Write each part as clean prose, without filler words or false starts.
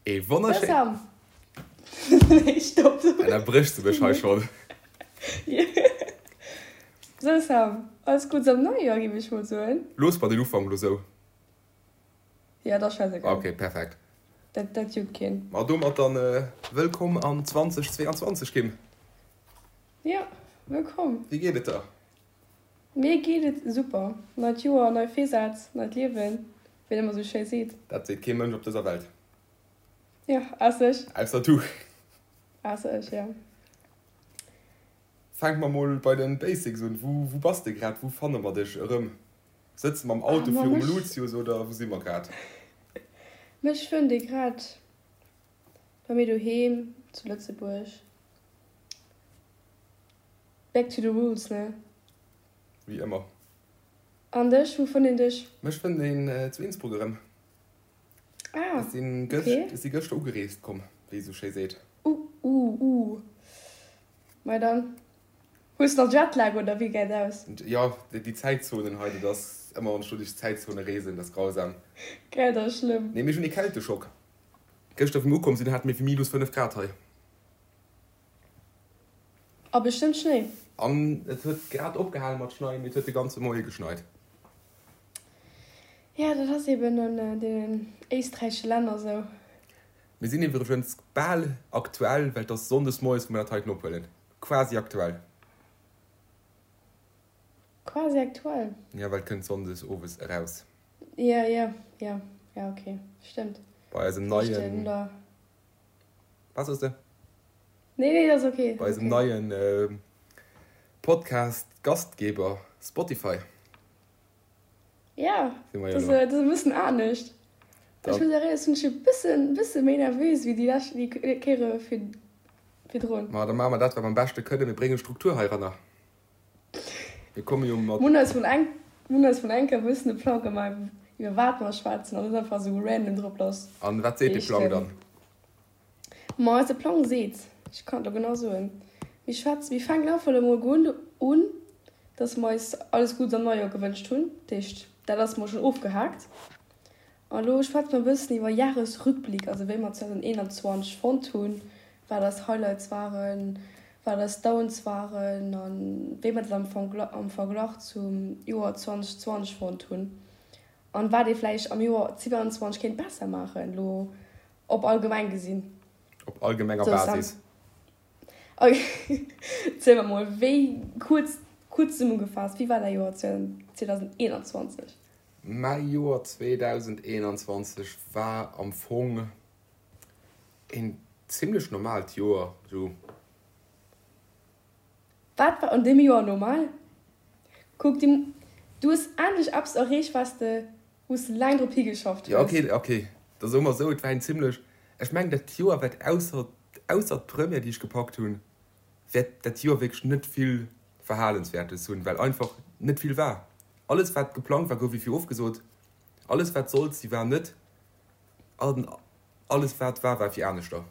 Ee wonnerschéi. Sam! Nee, stopp! Ënnerbréchs de mech hei schonn? Sou Sam, alles Guddes am Neijoer, géif ech mol soen. Looss mer den Ufank elo sou. Ja, dat ass scheißegal. Ok, perfekt. Dat, dat juckt keen. Ma domat dann wëllkomm an 2022, Kim. Ja, wëllkomm. Wéi geet et der? Mir geet et super. Neit Joer, nei Virsätz, neit Liewen, wéi een ëmmer sou schéi seet. Dat seet kee Mënsch op dëser Welt. Jo, ausser ech. Ausser du. Ausser ech, jo. Fänke mer mol bei de Basics un. Wou, wou bass de grad? Wou fanne mer dech erëm? Sëtze mer am Auto virum Lucius oder wou si mer grad? Mech fënnt ee grad bei mir doheem zu Lëtzebuerg. Back to the roots, ne? Wéi ëmmer. An dech, wou fënnt een dech? Mech fënnt een zu Innsbruck erëm. Ah, Ech sinn ok. gëscht, ech si gëschter ugereest komm, wéi ee sou schéi seet. Uh, uh, uh. Mei dann. Hues de nach Jetlag oder wéi gesäit aus? Jo, déi Zäitzonen hei, dat ass ëmmer, wann ech do duerch d'Zäitzone reesen, dat ass grausam. Gell, dat ass schlëmm. Nee, mir hunn ee Kälteschock. Gëschter, wéi mir ukomm sinn, hate mir wéi minus 5 Grad hei. A bestëmmt Schnéi. An et huet grad opgehale mat schneien, mee et huet de ganze Moie geschneit. Jo, dat ass eben an deenen éisträichesche Länner esou. Mir sinn iwwregens bal aktuell, well et ass sonndes moies, wou mir dat heiten ophuelen. Quasi aktuell. Quasi aktuell? Jo, well et kënnt sonndes owes eraus. Jo, jo, jo, jo, ok, stëmmt. Bei eisem neien. Was soss de? Nee, nee, dat ass ok. Bei eisem neien Podcast Gastgeber Spotify. Ja, dat ass e bëssen anescht. Ech muss awer soen, ech sinn e bëssen, bësse méi nervös wéi déi lescht, déi Kéiere virdrun. Ma da maache mer dat, wat mer am beschte kënnen, mir brénge Struktur heiranner. Mir komme jo mat. Mir hunn eis vun eng, mir hunn eis vun enker e bëssen e Plang gemaach, iwwer wat mer schwätzen an net einfach esou random drop lass. An wat seet dee Plang dann? Ma eise Plang seet, ech kann et elo genau soen, mir schwätzen, mir fänken einfach elo mol un, un, dass mer eis alles Guddes am Neijoer gewënscht hunn. Dat heescht, dat ass mol schonn ofgehaakt. An elo schwätze mer e bëssen iwwer Jahresrückblick, also wéi mer 2021 fonnt hunn, wat eis Highlights waren, wat eis Downs waren a wéi mer dat am am Verglach zum Joer 2020 fonnt hunn an wat ee vläicht am Joer 2022 kéint besser maachen, elo op allgemeng gesinn. Op allgemenger Basis. Ziel mer mol, wéi, kuerz, kuerz zesummegefaasst, wéi war däi Joer 2021? Mäi Joer 2021 war am Fong een zimlech normaalt Joer, sou. Wat war an deem Joer normal? Kuck, du hues endlech eppes erreecht, wat s de, wou s de laang drop higeschafft hues. Jo, ok, ok, da soe mer esou, et war een zimlech, ech mengen dat Joer wäert ausser, ausser d'Première, déi ech gepackt hunn, wäert dat Joer wierklech net vill Verhalenswäertes hunn, well einfach net vill war. Alles wat geplangt war, gouf ewéi ofgesot. Alles wat sollt si war net. An alles wat war, war fir aneschter.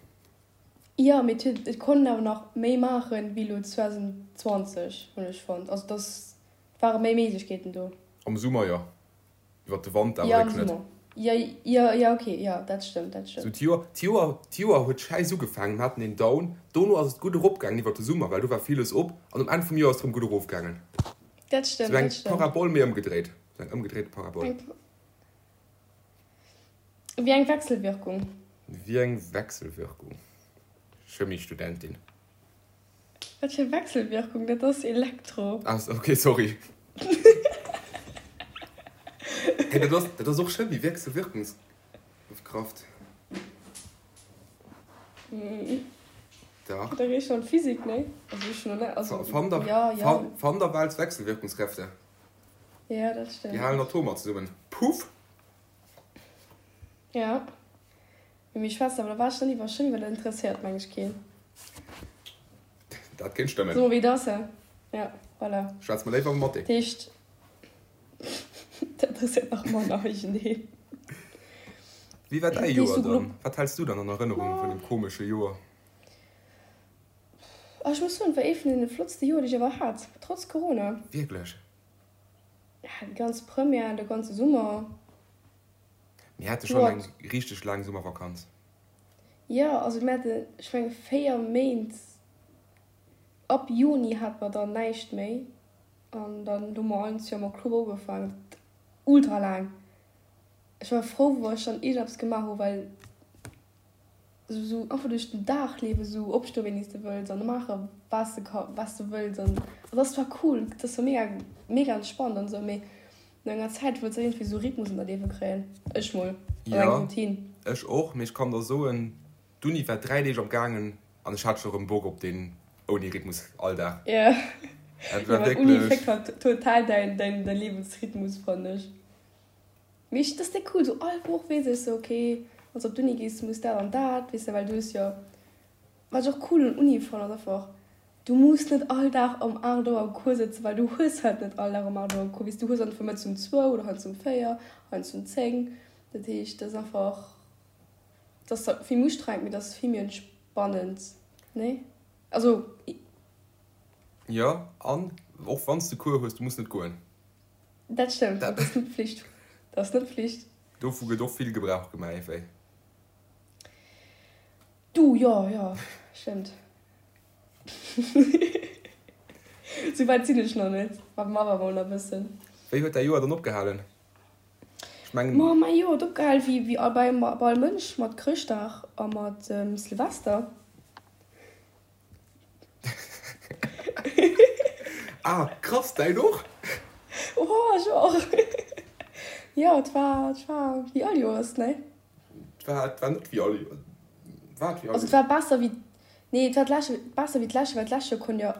Jo, mee et huet, et konnt een awer nach méi maachen wéi elo 2020, hunn ech fonnt. Also dass ware méi Méiglechkeeten do. Am Summer jo, iwwer de Wanter awer wierklech am net. Summer. Jo, jo, jo, ok, jo, dat stëmmt, dat Sou stëmmt. d'Joer, d'Joer, d'Joer huet schäiss ugefaangen, mir haten een Down, dono ass et gutt eropgaangen iwwer de Summer, well do war villes op, an um Enn vum Joer ass et erëm gutt erofgaangen. Dat stëmmt, Sou eng dat stëmmt. Parabol, mee ëmgedréit. Sou eng ëmgedréite Parabol. Eng, wéi eng Wechselwirkung. Wéi eng Wechselwirkung? Chemiestudentin. Wat fir Wechselwirkung? Dat ass Elektro. Ah, ok, sorry. Hey, dat ass, dat ass och Chemie, Wechselwirkungskraft. Dach. Da riech schon Physik, ne? Also ech schon net, also Van der, ja, ja. Van, Van der Waals Wechselwirkungskräfte. Ja, dat stimmt. Déi halen Atomer zesummen. Puff! Ja. Mee meng Schwester, awer da war ech dann iwwer Chimie, well dat interesséiert meng ech keen. Dat kéint stëmmen. Soe mer wéi et ass, he? Ja, voilà. Schwätz mer léiwer iwwer Mathé. Dat heescht, dat interesséiert nach manner iergendeen. Wéi war däi Joer dann? Wat häls du dann an Erënnerung vun deem komesche Joer? Ah, ech muss soen, et war ee vun deene flottste Joer, déi ech ever hat, trotz Corona. Wierklech? Ja, déi ganz Première, de ganze Summer. Mir hate schonn eng richteg laang Summervakanz. Jo, also mir haten, ech menge 4 Méint, ab Juni hate mer dann näischt méi an dann hu mer eins jo am Oktober ugefaangen. Dat ultra laang. Ech war frou, wou ech dann iergendeppes gemaach hu well esou einfach duerch den Dag liewen, esou opstoen wéini s de wëlls an maache wat s de ka wat s de wëlls an dat ass zwar cool, dat ass zwar mega mega entspannt an esou, mee no enger Zäit wëlls de iergendwéi esou Rhythmus an däi Liewe kréien. Ech mol, an eng Jo, Routine. ech och, mee ech kann der soen, d'Uni war 3 Deeg am gaangen an ech hat scho rëm Bock op deen ouni Rhythmus Alldag. Jo, Dat jo war well Uni wierklech. féckt halt total däin däin däi Liewensrhythmus fannen ech. Mee ech, dat ass déck cool, sou all Woch weess ech sou, ok, wann s de op d'Uni gees, muss dat an dat, weess de, well du hues jo, wat ech och cool un Uni fannen, ass einfach, du muss net all Dag um 8 Auer am Cours sëtzen, well du hues halt net all Dag um 8 Auer Cours, weess du hues einfach mëttes um zwou oder heiansdo um 4, heiansdo um 10, dat heescht, dat ass einfach, dat ass zwar vill méi ustrengend, mee dat ass vill méi entspannend, nee? Also. Jo, an och wann s de Cours hues, du muss net goen. Dat stëmmt, dat ass net Pflicht. Dat ass net Pflicht. Dovu gëtt och vill Gebrauch gemaach, ewéi. Du, jo, jo, stëmmt. Sou wäit sinn ech nach net, ma ma awer mol nach e bëssen. Wéi huet däi Joer dann opgehalen? Ech mengen. Ma mäi Joer huet opgehal wéi wéi bei all Mënsch, mat Chrëschtdag a mat Silvester. Ah, krass, däin och? Oh, ech och! Jo, et war, et war wéi all Joers, nee? Et war, et war net wéi all Joers. War et wéi all Also, et war besser wéi, nee, et war d'lescht, besser wéi d'lescht Joer, well d'lescht Joer konnt jo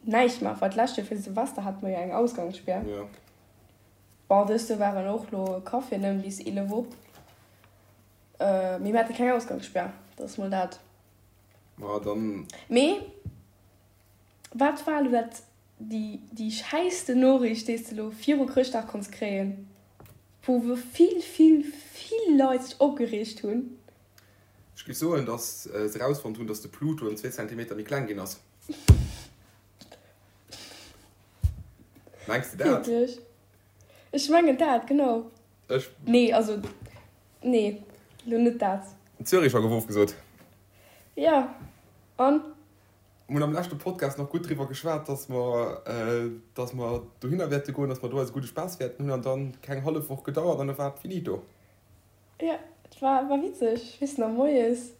näischt maachen, well d'lescht Joer fir Silvester hate mer jo eng Ausgangsspär. Jo. Bon, dëst Joer waren och lo Caféen nëmmen bis 11 op, mee mir hate keng Ausgangsspär, dat ass mol dat. Ma dann. Mee wat war elo dat déi déi schäissten Noriicht déi s de elo viru Chrëschtdag konns kréien, wou wou vill vill vill Leit sech opgereegt hunn? Ech géif soen, datt se erausfonnt hunn, datt de Pluto ëm zwee Zentimeter méi kleng ginn ass. Mengs de dat? Wierklech? Ech mengen dat, genau. Ech. Nee, also, nee, lo net dat. Züricher gouf ofgesot. Jo, an? Mir hunn am leschte Podcast nach gutt driwwer geschwat, dass mer, dass mer dohinner wäerte goen, dass mer do eise gudde Spaass wäerten hunn. An dann keng hallef Woch gedauert an da war et finito. Jo, et war, war witzeg. Ech weess nach, moies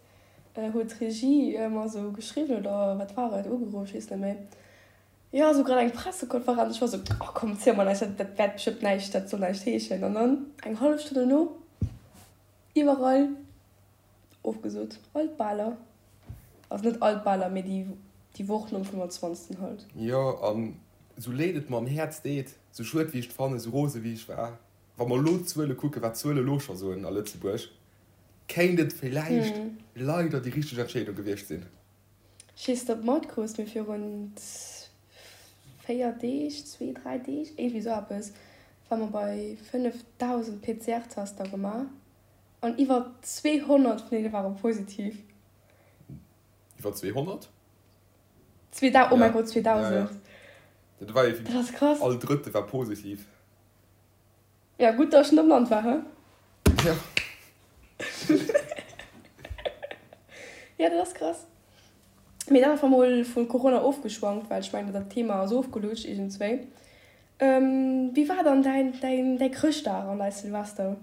huet d'Regie mer esou geschriwwen, oder wat war et, ugeruff, ech weess net méi. Jo, esou grad eng Pressekonferenz. Ech war esou, oh komm, ziel mer näischt, dat wäert bestëmmt näischt, dat soll näischt heeschen. An dann eng hallef Stonn dono, iwwerall ofgesot, all d'Baler. Also net all d'Baler, mee déi, déi Woch nom 25. Halt. Jo, an esou leed et mer am Häerz deet, esou schued wéi ech et fannen, esou rose wéi ech war, wa mer elo d'Zuele kucken, wat d'Zuele elo scho soen a Lëtzebuerg, kéint et villäicht leider déi richteg Entscheedung gewiescht sinn. Ech weess net ob matkrus, mee virun 4 Deeg, zwee, dräi Deeg, iergendwéi esou eppes, war mer bei 5.000 PCR-Tester gemaach an iwwer 200 vun deene ware positiv. Iwwer 200? Zweedau, oh mäi Gott, 2.000. Dat war jo Dat ass krass. All Drëtte war positiv. Ja, gutt, dass ech net am Land war, hä? Ja. Ja, dat ass krass. Mee dann einfach mol vu Corona ofgeschwankt, well ech mengen, dat Thema ass ofgelutscht iergendswéi. Wéi war dann däin, däin, däi Chrëschtdag an däi Silvester?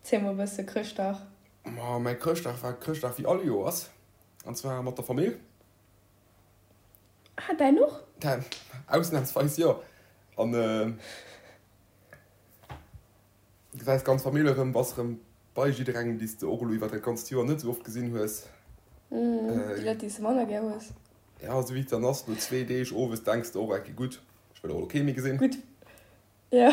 Ziel mol e bësse Chrëschtdag. Ma mäi Chrëschtdag war Chrëschtdag wéi all Joers, an zwar mat der Famill. Ah, däin och? Däin, ausnahmsweis jo. An Gesäis d'ganz Famill erëm, bass erëm bei jidderengem, déi s de och elo iwwer dat ganzt Joer net esou oft gesinn hues. Déi Leit, déi s de manner gär hues. Ja, esou wéi et dann ass, no zwee Deeg owes denks de och, ok gutt, ech wëll och elo kee méi gesinn. Gutt, ja.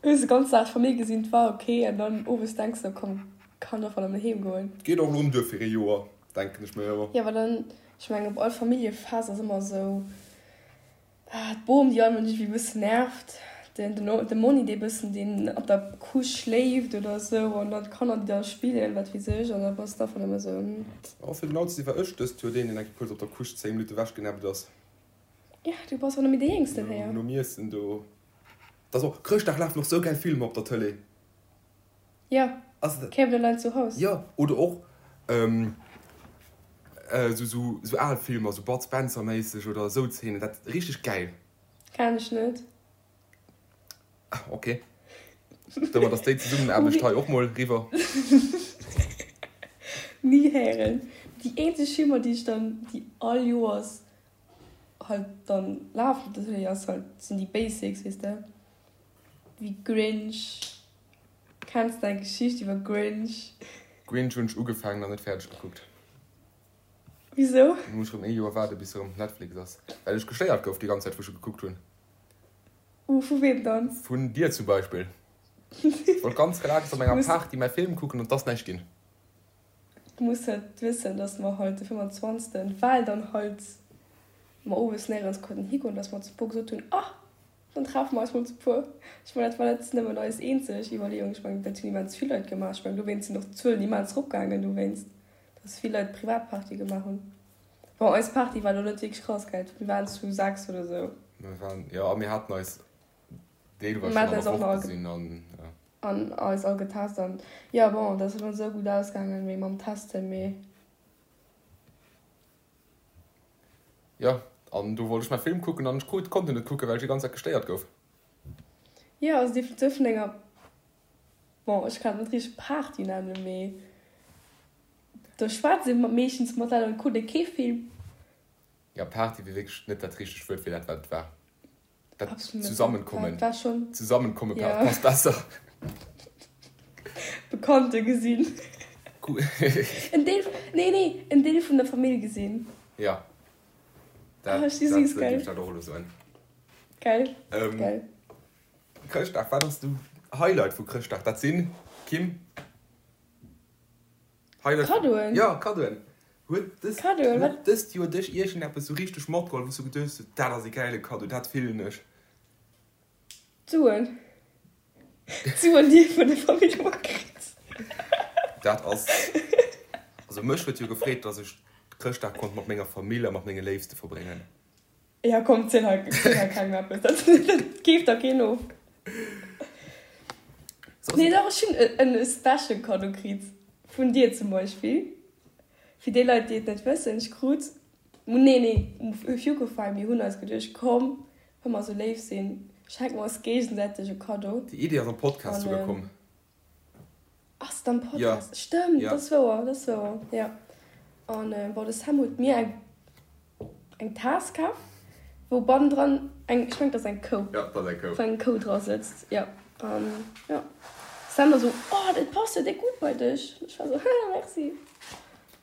Hues de ganz Dag d'Famill gesinn, 't war ok, an dann owes denks de, komm, kann och erëm heem goen. 't geet och elo erëm duer fir ee Joer, denken ech mir ëmmer. Jo, well dann, ech mengen, op all Familljefest ass ëmmer esou, D'Bom déi all Mënsch ewéi bëssen nervt, den de Monni dee bëssen deen op der Couche schléift oder esou an dann d'Kanner déi da spillen wat weess ech an da bass de einfach nëmme esou hm. Oh fir genau ze si war ech dëst Joer deen deen eng Kéier kuerz op der Couche 10 Minutte ewech genäppt ass. Ja du bass och net méi dee Jéngsten héier. Nom Iessen do. Dat ass och Chrëschtdag lafen och sou gäil Filmer op der Tëlee. Jo, Kevin allein zu Haus. Jo oder och. Esou sou sou al Filmer, sou Bud Spencer méisseg oder esou Zeenen, dat richteg gäil. Kenn ech net. Ok, domat ass déi Zesummenaarbecht hei och mol riwwer. Ni héieren. Déi eenzeg Filmer déi ech dann, déi all Joers halt dann lafen op der Télé ass halt, sinn déi Basics, weess de, wéi Grinch. Kenns de eng Geschicht iwwer Grinch? Grinch hunn ech ugefaangen an net fäerdeg gekuckt. Wisou? Lo muss ech erëm ee Joer waarde bis se erëm op Netflix ass. Well ech gestéiert gouf déi ganz Zäit wou ech e gekuckt hunn. Uh, vu weem dann? Vun dir zum Beispill. Ech wollt ganz relax op menger Party mäi Film kucken an 't ass näischt ginn. Du muss halt wëssen, dass mer halt de 25. Well dann halt mer owes néierens konnten higoen, dass mer zu puer gesot hunn, ah, Dann treffe mer eis mol zu puer. Ech mengen, dat war net nëmmen eis eenzeg Iwwerleeung. Ech mengen, dat hunn immens vill Leit gemaach. Ech mengen, dowéinst sinn och d'Zuelen immens eropgaangen, dowéinst, dass vill Leit Privatpartye gemaach hunn. Bon, eis Party war elo net wierklech krass, gell? Mir waren zu 6 oder sou. Mir waren, jo, a mir haten eis deelweis schonn an der Woch gesinn an, jo. An eis all getest an, jo, bon, dat ass elo net esou gutt ausgaangen, wéi mam Testen, mee. Jo, an do wollt ech mäi Film kucken an ech krut, konnt en net kucken, well ech déi ganz Zäit gestéiert gouf. Jo, also déi Frisur vun enger, bon, ech kann et net richteg Party nennen, mee do schwätzt ee meeschtens mat Leit an et kuckt ee kee Film. Jo, Party wier wierklech net dat richtegt Wuert fir dat, wat et war. Dat Zusammenkommen. War schon. Zusammenkommen ja. passt besser. Bekannte gesinn. En Deel, nee, nee, en Deel vun der Famill gesinn. Ja. Dat, oh, dat, dat, dat, dat och elo soen. Geil. Ähm, Geil. Chrëschtdag, wat ass de Highlight vu Chrëschtdag? Dat sinn, Kim? Highlight Kaddoen. Ja, Kaddoen. Huet dëst, Kaddoen, huet dëst Joer dech iergendeppes sou richteg matgeholl, wou s du geduecht hues, dat ass e gäile Kaddo, dat fillen ech? D'Suen. D'Suen, déi ee vun der Famill ëmmer kritt. Dat ass, also mech huet jo gefreet, dass ech Chrëschtdag konnt mat menger Famill a mat menge Léifste verbréngen. Ja komm, ziel hei, ziel hei kengem eppes, dat, dat keeft der keen of. Nee, dach, ech hunn en e special Kaddo kritt, vun dir zum Beispill. Fir déi Leit, déi et net wëssen, ech krut, nee, nee, Fukofy, mir hunn eis geduecht, komm, wa mer esou léif sinn, schenke mer eis géigesäiteg e Kaddo. Déi Idee ass am Podcast souguer komm. Ass et am Podcast? Ja. Stëmmt, ja. Dat ass wouer, dat ass wouer, ja. An bon, de Sam huet mir eng eng Taass kaf, wou bannendran eng, ech mengen, dat ass eng Kou. Ja, dat ass eng Kou. Wou eng Kou dra sëtzt, ja. An ja, Sam war sou, Oh, dat passt jo déck gutt bei dech. An ech war sou, Haha, merci.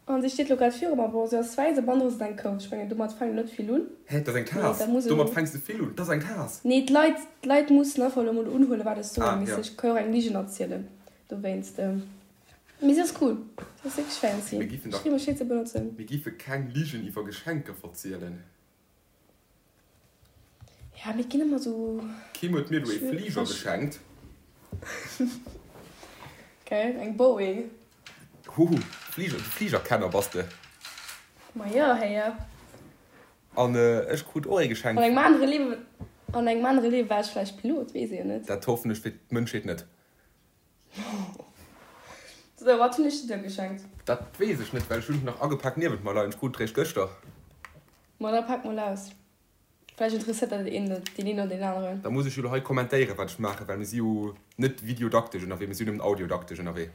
An si steet lo grad viru mer. Bon, se ass wäiss a bannendru sëtzt eng Kou. Ech mengen, domat fänkt een net vill un. Hä, dat ass eng Taass? Domat fänks de vill un? Dat ass eng Taass! Nee, d'Leit, d'Leit mussen einfach elo mol unhuelen, wat ech soen. Ah, ja. Ech ka jo och eng Ligen erzielen dowéinst. Mee se ass cool. Se ass wierklech fancy. Mir giffen dach. Ech freeë mech, se ze benotzen. Mir giffe keng Ligen iwwer Geschenker verzielen. Ja, mir ginn ëmmer sou. D'Kim huet mir elo ee Fliger geschenkt. Geil, eng Boeing. Huhu, Fliger, de Fligerkenner bass de. Ma jo, héier. An ech krut och ee geschenkt. An engem anere Liewen, an engem anere Liewe war ech vläicht Pilot, weess ee jo net. Dat hoffen ech fir d'Mënschheet net. Sou, wat hunn ech dir da geschenkt? Dat weess ech net, well ech hunn et nach agepak niewent mer leien. Ech krut et réischt gëschter. Ma da pak mol aus. Vläicht interesséiert dat een, deen een oder deen aneren. Da muss ech jo elo hei kommentéieren, wat ech maachen, well mir si jo net videodaktesch ënnerwee, mir si jo nëmmen audiodaktesch ënnerwee.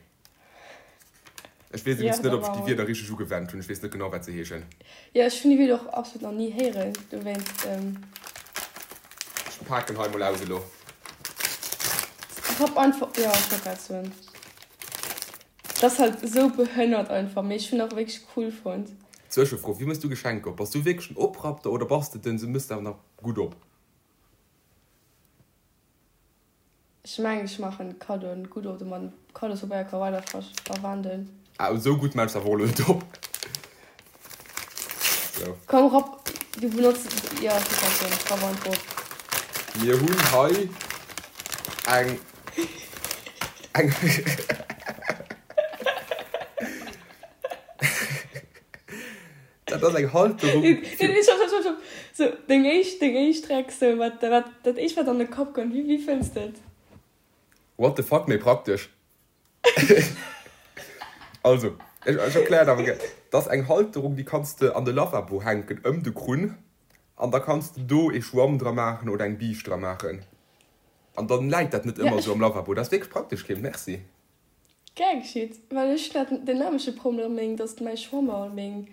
Ech weess Ja, iwwregens net, da ob ech maache déi mer. Wierder richteg ugewennt hunn. Ech weess net genau, wat se heeschen. Jo, ech hunn déi Wierder och absolut nach ni héieren, dowéinst. Ech paken hei mol aus elo. Rapp einfach, jo, ech wollt grad soen, dat ass halt esou behënnert einfach, mee ech hunn och wierklech cool fonnt. Zwëschefro, Wéi mëss du Geschenker op? Bass du wierklech den Oprappter oder bass de den se mësst awer nach gutt op? Ech mengen ech maachen Kaddoen gutt op, domat Kaddospabeier ka weider verwenden. Ah esou gutt mells awer och elo net op. Sou. Komm rapp, du benotz, jo ech wollt grad soen, rapp einfach op. Mir hunn hei eng eng Dat ass eng Halterung Nee, nee, stopp, stopp, stopp, stopp. So, deng éischt, deng éischt Reaktioun, wat, wat, dat éischt, wat an de Kapp kënnt, wéi, wéi fënns de et? What the fuck, méi praktesch. Also. Ech erklären awer gär. Dat ass eng Halterung, déi kanns de an de Lavabo hänken, ëm de Krunn. An da kanns de do ee Schwamm dra maachen oder eng Biischt dra maachen. An dann läit dat net ëmmer esou am Lavabo. Dat ass wierklech praktesch, Kim. Merci. Gär geschitt. Well ech hunn dat den nämleche Problem, meng, dass mäi Schwamm a meng,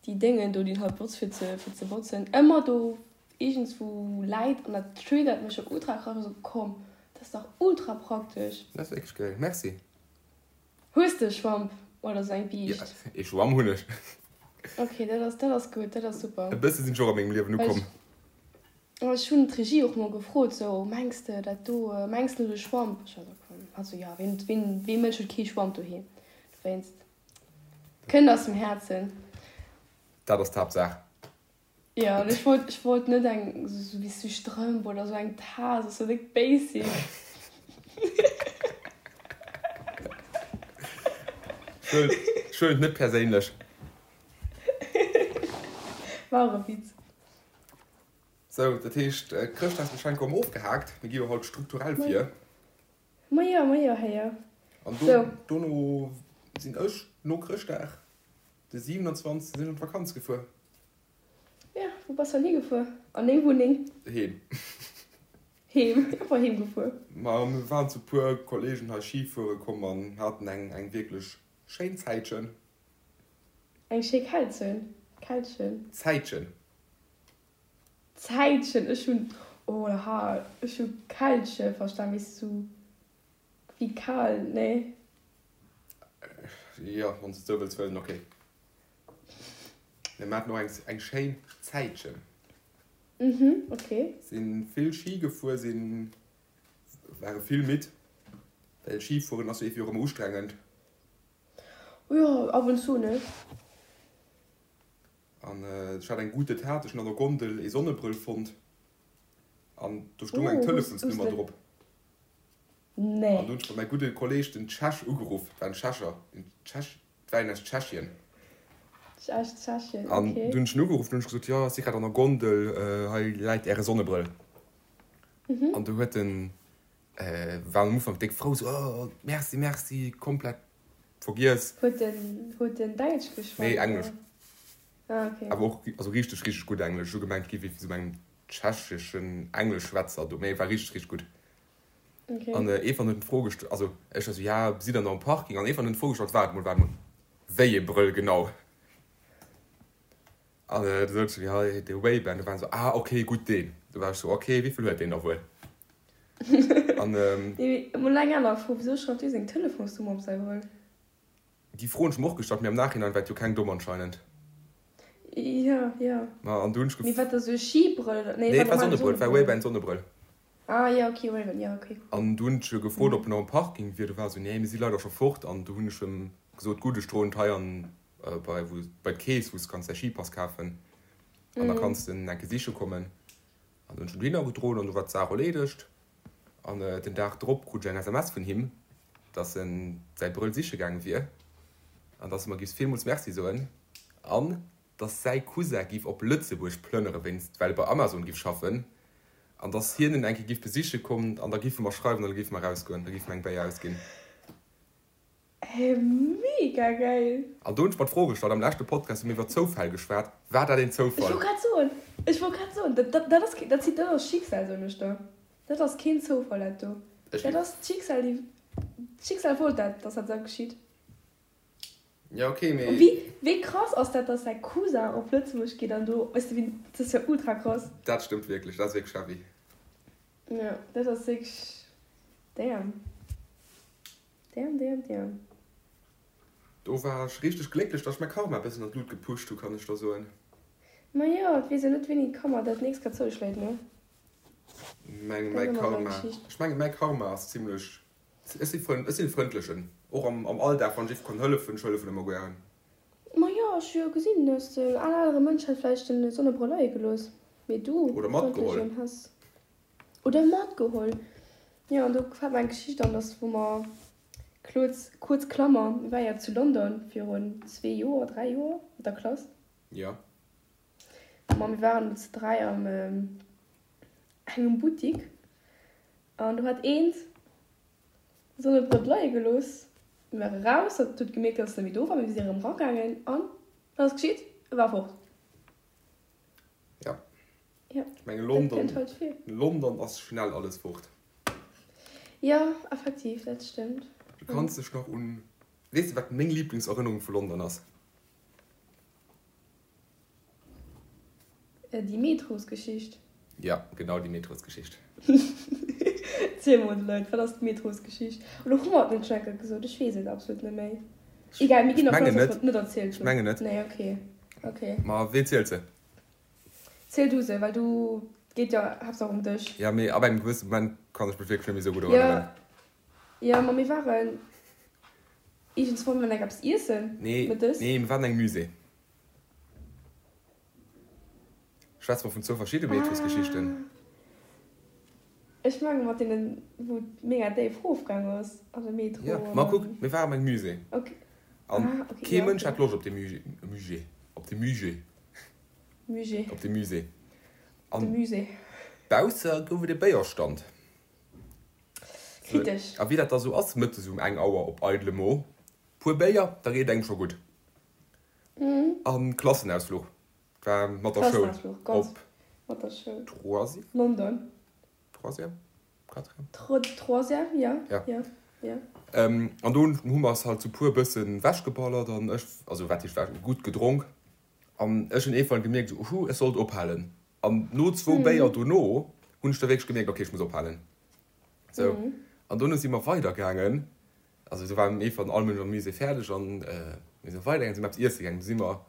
déi Déngen do, déi een halt benotzt fir ze, fir ze botzen, ëmmer do iergendswou läit an dat triggert mech jo ultra krass. Ech sou, komm, dat ass dach ultra praktesch. Dat ass wierklech geil. Merci. Hues de e Schwamp oder sou eng Biischt? Jo, ee Schwamm hunn ech. Ok, dat ass, dat ass gutt, dat ass super. E bësse sinn ech och a mengem Liewen ukomm. Ech hunn d'Regie och mol gefrot, sou, mengs de dat do, mengs de de Schwamp? Ech war sou, komm, hat sou, jo, ween, ween, wee Mënsch huet kee Schwamp doheem? Dowéinst, kënnt aus dem Häerzen. Dat ass d'Haaptsaach. Jo, an ech wollt, ech wollt net eng, sou wéi sou Strëmp oder sou eng Taass, ass sou déck basic. Ech huelen et net perséinlech. War och e Witz. Sou, dat heescht, d'Chrëschtdagsgeschenker hu mer ofgehaakt. Mir gi jo haut strukturell vir. Majo, majo, héier. An do, dono sinn ech no Chrëschtdag, de 27. sinn ech an d'Vakanz gefuer. Ja, wou bass dann higefuer? An deng Wunneng? Heem. Heem, einfach heem gefuer. Ma mir waren zu puer Kollegen hei Ski fuere komm an haten eng, eng wierklech schéin Zäitchen. Eng schéi Kältchen, Kältchen. Zäitchen. Zäitchen, ech hunn, oh ha, ech hu Kältche verstan, weess du, sou wéi kal, nee? Jo, wann s de et sou wëlls huelen, ok. Mir haten och eng, eng schéin Zäitchen. Mhm, ok. Sinn vill Ski gefuer, sinn, ware vill midd, well Skifueren ass jo iergendwéi och ëmmer ustrengend. Jo, ab und zu, ne? An ech hat eng gute Tat, ech hunn an der Gondel ee Sonnebrëll fonnt an do stung eng Telefonsnummer drop. Nee. An do hunn ech bei mäi gudde Kolleg, den Tschech, ugeruff. Et war en Tschecher, en Tschech, et war een aus Tschechien. Aus Tschechien, okay. An du hunn ech en ugeruff, an hunn ech gesot, jo, ech si grad an der Gondel, hei läit äre Sonnebrëll. An du huet en, war am Ufank déck frou, sou, oh, merci, merci, komplett vergiess. Huet en, huet en Däitsch geschwat? Nee, Englesch. Ah, okay. Awer och, also richteg, richteg gutt Englesch. Ech hu gemengt, et géif ee vu sou engem tschecheschen Engleschschwätzer do, mee et war richteg, richteg gutt. Okay. An Evan huet d'Fro gestallt, also ech war sou, ja, sidd der nach um Parking? An Evan huet d'Fro gestallt, waart mol, waart mol, wéi ee Brëll genau? An du sot ech, jo, de Ray-Ban. Du war en sou, ah, okay, gutt, deen. Du war ech sou, okay, wéi vill huet deen da wuel? An. Mee mol eng aner Fro, Wisou schreift dee seng Telefonsnummer op säi Brëll? Déi Fro hunn ech mer och gestallt, mee am Nachhinein war et jo keng domm anscheinend. Jo, jo. Ma an du hunn ech gef. Mee wat da sou e Skibrëll oder? Nee, et war Sonnebrëll, et war Ray-Ban Sonnebrëll. Ah, jo, okay, Ray-Ban, jo, okay. An du hunn ech e gefrot, ob en nach um Parking wier. Du war e sou, nee, mir si leider scho fort. An du hunn ech em gesot, gutt, ech droen et hei an bei wou bei d'Kees wou s kanns däi Skipass kafen an da kanns de en eng Kéier siche kommen. An du hunn ech en dohinner gedroen an du war d'Saach erleedegt. An den Dag drop krut ech eng SMS vun him, dass en säi Brëll siche gaange wier an dass e mer giff villmools Merci soen an dass säi Cousin giff op Lëtzebuerg plënnere wéinst well e bei Amazon giff schaffen an dass hien en eng Kéier giff besiche kommen an da giffe mer schreiwen an da giffe mer erausgoen, da giffe mer eng Béier ausginn. Hä, mega geil! An do hunn ech mer d'Fro gestallt, am leschte Podcast hu mir iwwer Zoufäll geschwat, war dat een Ech Zoufall? wollt grad soen, ech wollt grad soen, dat, dat, dat ass keen, dat, dat ass Schicksal, soen ech der. Dat ass keen Zoufall, dat do. Ech Dat ass d'Schicksal, déi, d'Schicksal wollt dat, dass dat esou geschitt. Ja, okay, mee. An wéi, wéi krass ass dat, dass säi Cousin op Lëtzebuerg geet an do, weess de wéi, dat ass jo ultra krass. Dat stëmmt wierklech, dat ass wierklech heavy. Jo, dat ass wierklech, damn. Damn, damn, damn. Do war ech richteg glécklech, dass ech mäi Karma e bëssen an d'Lut gepusht hu, kann ech der soen. Ma jo, et weess een net wéini d'Kammer dat nächst grad zouschléit, ne? Meng, mäi Karma, ech mengen mäi Karma ass zimlech, ech si frënd, ech sinn e frëndlechen, och am, am Alldag, wann ech ierf kann hëllefen, ech hëllefen ëmmer gären. Ma jo, ech hu jo gesinn, dass en anere Mënsch hätt vläicht den Sonnebrëll leie gelooss, mee du, Oder matgeholl. frëndlechen, häss. Oder matgeholl. Jo, an do fält mer eng Geschicht an, dass wou mer, Kluz, kuerz Klammer, mir ware jo zu London virun zwee Joer, dräi Joer mat der Klass. Jo. Ma mir waren do zu dräi am engem Buttik an do hat eent Sonnebrëll leie gelooss. Mir ware raus, hat huet gemierkt, dass en net méi do war. Mir si erëm ragaangen an wat ass geschitt? E war fort. Ja. Ja, Ech menge dat London, kënnt halt vir. London ass schnell alles fort. Ja, effektiv, dat stëmmt. Du kanns dech nach un, weess de wat meng Lieblingserënnerung vu London ass? Déi Metrosgeschicht. Ja, genau déi Metrosgeschicht. Ziel mol de Leit, wat ass d'Metrosgeschicht? Oder hu mer et net schon eng Kéier gesot? Ech weess et absolut net méi. Egal, mir ginn Ech dervun mengen aus, dass net. mer et net erzielt Ech hunn. mengen net. Nee, okay. Okay. Ma ween zielt se? Ziel du se, well du, et geet jo haaptsaach ëm dech. Ja, mee ab engem gewësse Moment kann ech mech wierklech net méi esou gutt Jo, erënneren. jo, ma mir waren iergendswann mol eng eppes iessen Nee, mëttes. nee, mir waren an engem Musée. Schwätze mer vun zwou verschidde Metrosgeschichten? Ah, ech menge mat deenen, wou et mega déif rofgaang ass an de Metro Jo, an ma kuck, dann. mir waren an engem Musée. Okay. An Ah, okay, kee ja, Mënsch okay. hat Loscht op dee Musée, Musée, op dee Musée. Musée. Op de Musée. De An Musée. bausse gouf et e Béierstand. Kritesch. A wéi dat da sou ass, mëttes um eng Auer op eidele Mo, puer Béier, da geet et engem scho gutt. An Klassenausfluch war mat der Schoul Klassenausfluch, ganz op mat der Schoul. Troisième? London. Troisième? Quatrième? Troisième, ja. Ja. Ja, ja. An do hu mer eis halt sou puer bëssen wechgeballert an ech, also wat heescht wech, gutt gedronk. An ech hunn iergendwann gemierkt, esou, Uhu, ech sollt ophalen. An no zwou Béier dono hunn ech da wierklech gemierkt, okay, ech muss ophalen. Sou. An dono si mer weidergaangen. Also do war iergendwann all Mënsch am Musée fäerdeg an mir si weidergaangen, si mer eppes iesse gaangen. Du si mer,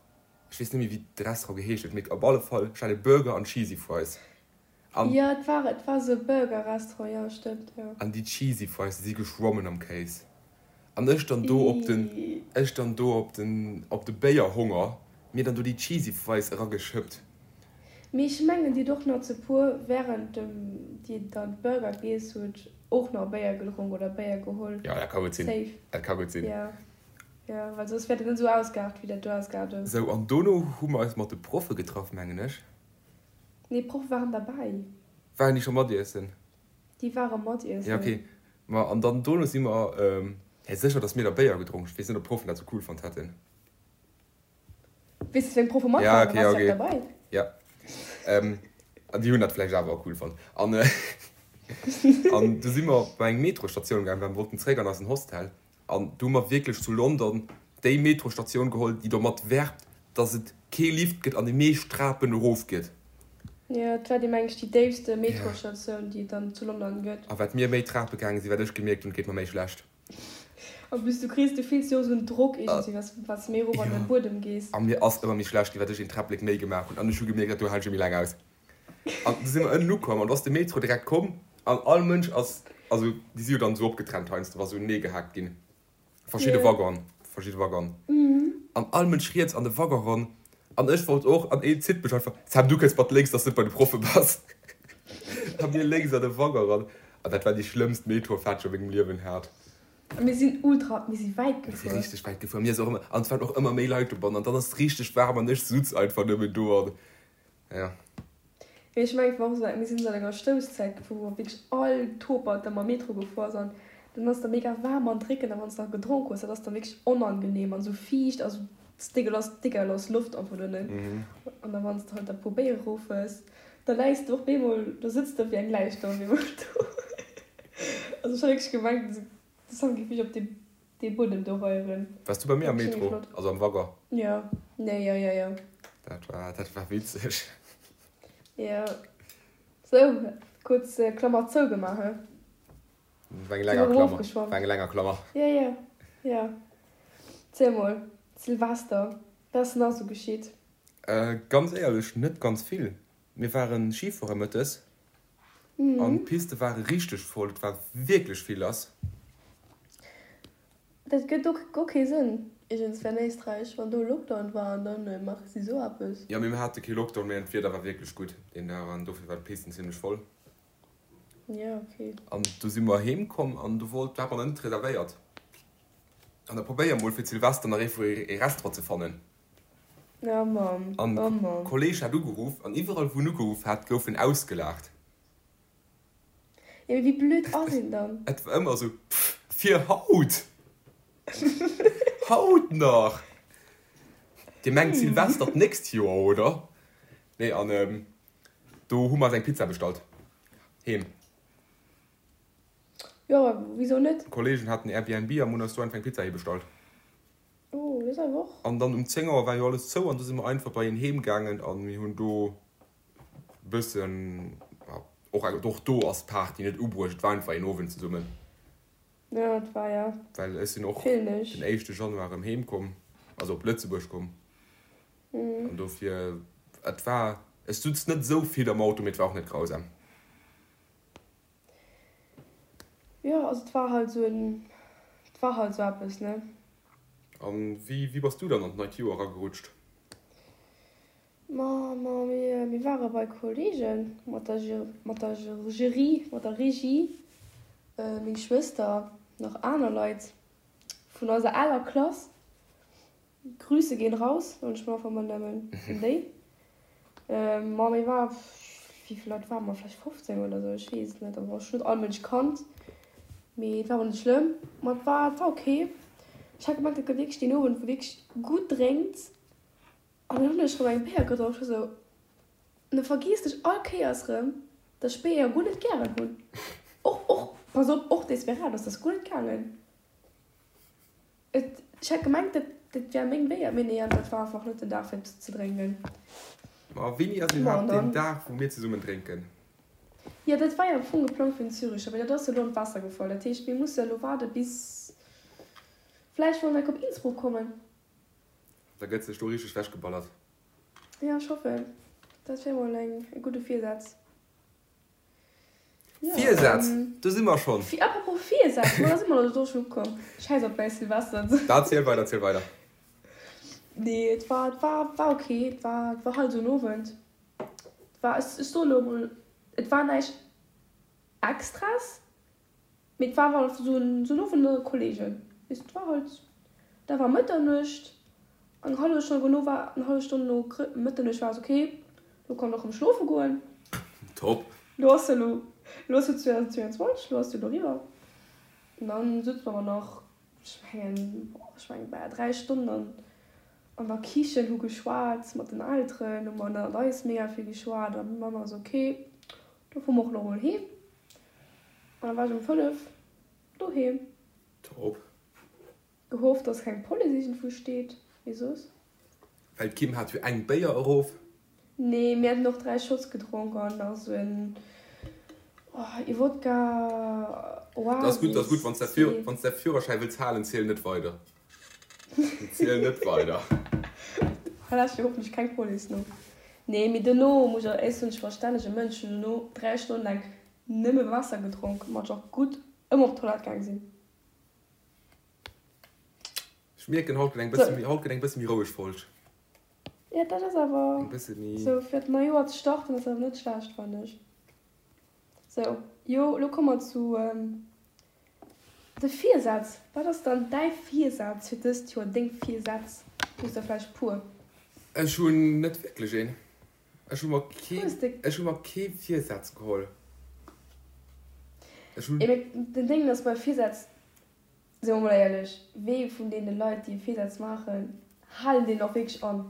ech weess net méi, wéi de Restaurant geheescht huet, mee op alle Fall, ech hat e Burger an Cheesy Fries. An Jo, et war, et war esou e Burger-Restaurant, jo, stëmmt, jo. An déi Cheesy Fries, déi si geschwommen am Kéis. An ech dann do op den, ech dann do op den, op de Béierhonger, mir dann do déi Cheesy Fries erageschëppt. Mee ech mengen, dir hutt och nach zu puer, während dem dir dann d'Burger giess hutt, och nach Béier gedronk oder Béier geholl. Jo, dat ka gutt sinn. Safe. Dat ka gutt sinn. Jo, jo, well soss wäert et net esou ausgeaart, wéi dat do ausgeaart ass. Sou, an dono hu mer eis mat de Proffe getraff, mengen ech. Nee, d'Proffe waren derbäi. Waren déi scho mat iessen? Déi ware mat iessen. Ja, okay. Ma an dann dono si mer, hä, sécher, dass mir da Béier gedronk. Ech weess net, ob d'Proffen dat sou cool fonnt hätten. Weess de, wéi eng Proffe mat Ja, waren? okay, Waars okay. du derbäi? Ja. An déi hunn dat vläicht awer och cool fonnt. An, an du si mer bei eng Metrostatioun gaangen, well mer wollten zréck an eisen Hostel. An du hu mer wierklech zu London déi Metrostatioun geholl, déi domat werbt, dass et kee Lift gëtt an déi meescht Trapen erof geet. Jo, et war déi, meng ech, déi déifste Metrostatioun, déi et dann zu London gëtt. A wat mir méi Trape gaange sinn, wat ech gemierkt hunn, et geet mer méi schlecht. En plus, du kriss, du fills jo och esou en Drock iergendwéi, wat wat s de méi erof an de Buedem gees. A mir ass ëmmer méi schlecht ginn, wat ech een Träpplek méi gemaach hunn. An ech hu gemierkt, dat do halen ech net méi laang aus. An du si mer ënnen ukomm an du ass de Metro direkt komm an all Mënsch ass, also déi si jo dann esou opgetrennt heiansdo, wa sou unenee gehaakt ginn, verschidde Waggonen, verschidde Waggonen. An all Mënsch riets an de Waggon ran an ech wollt och an een zitt mech einfach, Sam du kënns mat lénks, dass du net bei de Proffe bass. A mir lénks an de Waggon ran an dat war déi schlëmmst Metrofaart déi ech a mengem Liewen hat. A mir sinn ultra, mir si wäit Mir si gefuer. richteg wäit gefuer, mir ass och ëmmer, an et waren och ëmmer méi Leit dobannen an dann ass et richteg waarm an ech sutz einfach nëmmen do an Ja. Mee ech mengen, et war och esou, mir sinn esou an enger Stousszäit gefuer, wou wierklech all Topert da mam Metro gefuer ass an dann ass da mega waarm an dréckend a wann s de nach gedronk hues, dat ass dann wierklech onangenehm an esou fiicht a sou dégueulasse, dégueulasse Loft einfach donnen. An da wann s de halt da puer Béier erof hues, da läis de och bemol, do sëtz de wéi eng Läich do op eemol do. Also ech hat wierklech gemengt, de Sam géif mech op dee Dee Buedem do reieren. Wars du bei mir am Metro, also am Waggon? Jo, nee, jo, jo, jo. Dat war, dat war witzeg. Jo. Sou, kuerz Klammer zougemaach, he? War eng länger Klammer, war eng länger Klammer. Jo, jo, jo. Ziel mol, Silvester, wat ass nach sou geschitt? Ganz éierlech, net ganz vill. Mir waren Skifuere mëttes an d'Piste ware richteg voll, et war wierklech vill lass. Dat gëtt och guer kee Sënn iergendswéi an Éisträich, wann do Lockdown war an dann maache si sou eppes. Jo, mee mir hate kee Lockdown, mee d'Wieder war wierklech gutt deen Dag an dofir war d'Pisten zimmlech voll. Jo, ok. An du si mer heem komm an du wollt, du hat mer net reservéiert an da probéier mol fir Silvester nach iergendwou ee Restaurant ze fannen. Oh Mann, An oh Mann. Kolleg hat ugeruff an iwwerall wou en ugeruff hat gouf en ausgelaacht. Jo mee wéi blöd ass een dann? Et war ëmmer esou, Pff, fir haut? Haut nach! Dir mengt Silvester d'nächst Joer, oder? Nee, an do hu mer eis eng Pizza bestallt. Heem. Jo, wisou net? Kollegen haten Airbnb a mer hunn eis do einfach eng Pizza heebestallt. Oh, dat ass awer och. An dann um 10 Auer war jo alles zou an du si mer einfach bei een heem gaangen an mir hunn do bëssen, och och do ass d'Party net ubruecht, et war einfach een Owend zesummen. Jo, et war ja. Well ech sinn och den éischte Januar erëm heem komm, also op Lëtzebuerg komm. An dofir, et war, ech sutz net esou vill am Auto, mee et war och net grausam. Jo, also et war halt esou en, et war halt esou eppes, ne. An wéi, wéi bass du dann an d'neit Joer eragerutscht? Ma, ma mir, mir ware bei Kollegen mat der, mat der Jury, mat der Regie, meng Schwëster, nach aner Leit vun eiser aler Klass. Grüße gehen raus, soen ech mol einfach mol nëmmen un déi. Ma mir war, wéi vill Leit ware mer, vläicht 15 oder sou, ech weess et net. Also ech hunn net all Mënsch kannt, mee et war awer net schlëmm. Ma et war, et war ok. Ech hat gemengt, et gëtt wierklech deen Owend, wou wierklech gutt drénkt. An dann hunn ech rëm eng Béier gedronk, ech war sou, an da vergiess ech all Kéiers rëm, dass ech Béier guer net gären hunn. Och, och, pass op, och Desperados, dat ass guer net gaangen. Et, ech hat gemengt, dat, dat wär meng Béier, mee nee, an dat war einfach net den Dag fir ze drénken. Ma wéini ass iwwerhaapt deen Dag, wou mir zesummen drénken? Jo, dat war jo am Fong geplangt fir den Züricher, mee dat ass jo elo an d'Waasser gefall. Dat heescht, mir musse elo waarde bis vläicht wann enk op Innsbruck kommen. Da gëtt sech do richteg wechgeballert. Jo, ech hoffen. Dat wär mol eng, e gudde Virsaz. Virsätz, do si mer schonn. Apropos Virsätz, ma da si mer elo do schonn ukomm. Schäiss op mäi Silvester. Da ziel weider, ziel weider. Nee, et war, et war, war ok. Et war, et war halt esou en Owend. Et war, ech, ech soe lo emol, et war näischt Extras. Mee et war awer esou en Owend ënner Kollegen, weess de, et war halt, da war Mëtternuecht, eng hallef Stonn dono war, eng hallef Stonn no Mëtternuecht war es ok, lo kann och erëm schlofe goen. Top. Lo ass jo lo, lo ass jo 2022, lo ass jo lo eriwwer. An dann sutze mer awer nach, ech mengen, boah, ech mengen bal 3 Stonnen an an der Kichen, hu geschwat mat den Elteren, hu mer ënnert eis mega vill geschwat an d'Mamm ass ok, do fuere mer och lo mol heem. An da war ech um 5 doheem. Top. Gehofft dass keng Police iergendwou steet, mee soss. Well d'Kim hat jo eng Béier erof. Nee, mir haten och 3 Shots gedronk an nach sou en, oh, ee Wodka Dat ass gutt, dat ass gutt. Wann s de, wann s de Führerschäi wëlls halen, ziel net weider. Ziel net weider. Hei lauschtert jo hoffentlech keng Police no. Nee, mee dono muss ech, ech sinn e verstännege Mënsch, hunn dono 3 Stonnen laang Nëmme Waasser gedronk, mat ech och gutt ëmmer op d'Toilette gaang sinn. Ech mierken, haut gëtt eng bësse méi, haut gëtt eng bësse méi roueg Folg. Jo, dat ass awer Eng bësse méi. sou fir d'nei Joer ze starten ass awer net schlecht, fannen ech. Sou, jo, elo komme mer zu de Virsätz. Wat ass dann däi Virsaz fir dëst Joer, deng Virsätz? Hues der vläicht puer? Ech hunn net wierklech een. Ech hu mer kee, ech hu mer kee Virsaz geholl. Ech hunn. Mee den Déngen ass bei Virsätz, si mer mol éierlech, wee vun deene Leit, déi Virsätz maachen, halen deen och wierklech an?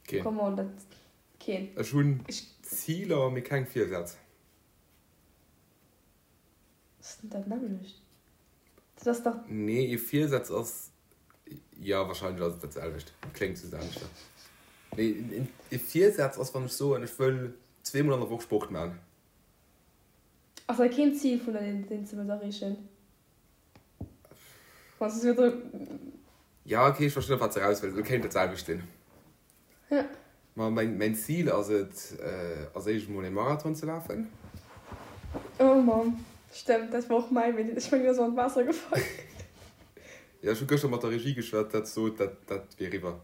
Keen. Come on, dat, keen. Ech hunn Ziler, mee keng Virsätz. Ass net dat nämmlecht? Dat ass dach. Nee, ee Virsaz ass, jo, wahrscheinlech ass et dat selwecht, kléngt just aneschter. Nee, ee Virsaz ass, wann ech soen, ech wëll zweemol an der Woch Sport maachen. Ass dat keen Zil vun der, deen s de wëlls erreechen? Wann s de sou. Jo, okay, ech verstinn, op wat s de eraus wëlls. Et kéint dat selwecht sinn. Ja. Ma mäin, mäin Zil ass et, als éischt emol ee Marathon ze lafen. Oh Mann, stëmmt, dat war och mäin, mee ech mengen, dat ass an d'Waasser gefall. Jo, ech hu gëschter mat der Regie geschwat, dat sot, dat, dat wier eriwwer.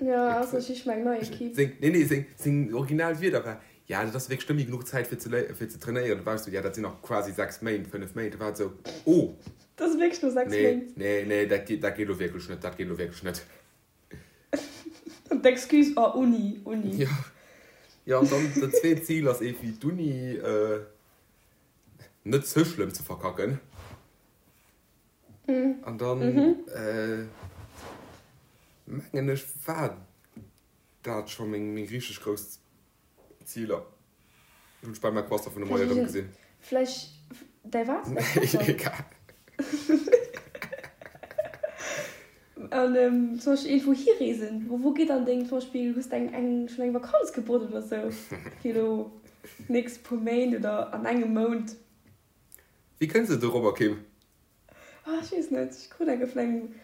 Jo, ass ech ich meng nei Equipe. Seng, nee, nee, seng, seng original Wierder war, Ja, dat ass wierklech net méi genuch Zäit fir ze, fir ze trainéieren. Da war ech sou, Ja, dat sinn nach quasi 6 Méint, 5 Méint. Da war et sou, Oh! Dat ass wierklech no 6 Nee, Méint. nee, nee, dat geet, dat geet elo wierklech net, dat geet elo wierklech net. An d'Excuse, oh Uni, Uni. Jo, jo, an dann dat zweet Zil ass evi d'Uni net ze schlëmm ze verkacken. An dann, mengen ech, war dat scho meng richteg grouss Ziler. Hunn ech bal mäi Croissant vun de Moie erëm gesinn. Vläicht däi wat? Däi Croissant? Egal. An zum Beispill iergendwou hireesen, wou geet dann deng, zum Beispill hues de eng eng schonn eng Vakanz gebucht oder sou fir elo d'nächst puer Méint oder an engem Mount? Wéi kënns de dorobber, Kim? Ah, ech weess net, ech krut eng vun engem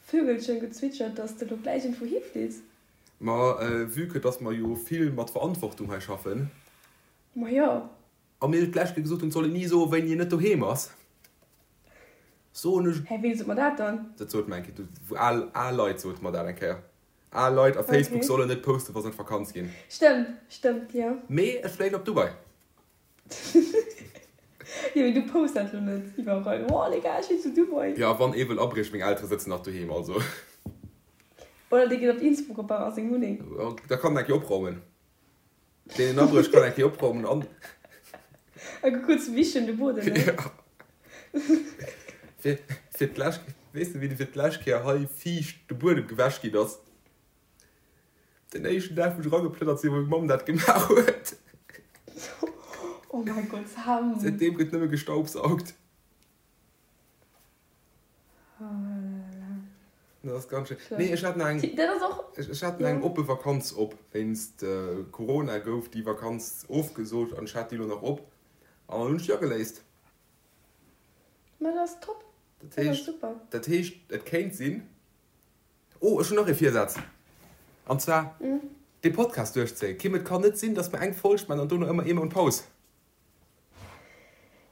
Vögelchen gezwitschert, dass de elo gläich iergendwou hifliss. Ma vue que dass mer jo vill mat Verantwortung hei schaffen. Ma jo. A mir d'lescht Kéier gesot hunn, et soll een ni soen, wéini een net doheem ass, soen ech. Hä, ween sot mer dat dann? Dat sot mer eng Kéier, wou al, al Leit sote mer dat eng Kéier. Al Leit a Facebook sollen net posten, wa se an d'Vakanz ginn. Stëmmt, stëmmt, jo. Mee ech fléien op Dubai. Jo, mee du posts dat lo net iwwerall. Oh les gars, ech sinn zu Dubai. Jo, a wann ee wëll abriechen, meng Eltere sëtzen nach doheem, also. Oder dee geet op Innsbruck op a seng Wunneng. Da kann en eng Kéier opraumen. Deen en abrécht, kann eng Kéier opraumen an. A kuerz wischen de Buedem, ne? Jo. Fir, fir d'lescht, weess de wéi fir d'lescht Kéier hei fiicht de Buedem gewäsch ginn ass? Den éischten Dag wou ech erageplënnert sinn, wou meng Mamm dat gemaach huet. Oh mäi Gott, Sam. Säitdeem gëtt nëmme gestaubsaugt. Oh là là. Dat ass ganz schéin. Nee, ech hat nach eng, Dat ass och, ech hat nach eng oppe Vakanz op. Wéinst Corona gouf déi Vakanz ofgesot an ech hat déi elo nach op an dann hunn ech déi ageléist. Ma dat ass top. Dat Dat ass heescht, super. dat heescht, et kéint sinn, Oh, ech hunn nach ee Virsaz, an zwar dee Podcast duerchzéien. Kim, et kann net sinn, dass mer eng Folg maachen an dono ëmmer ee Mount Paus.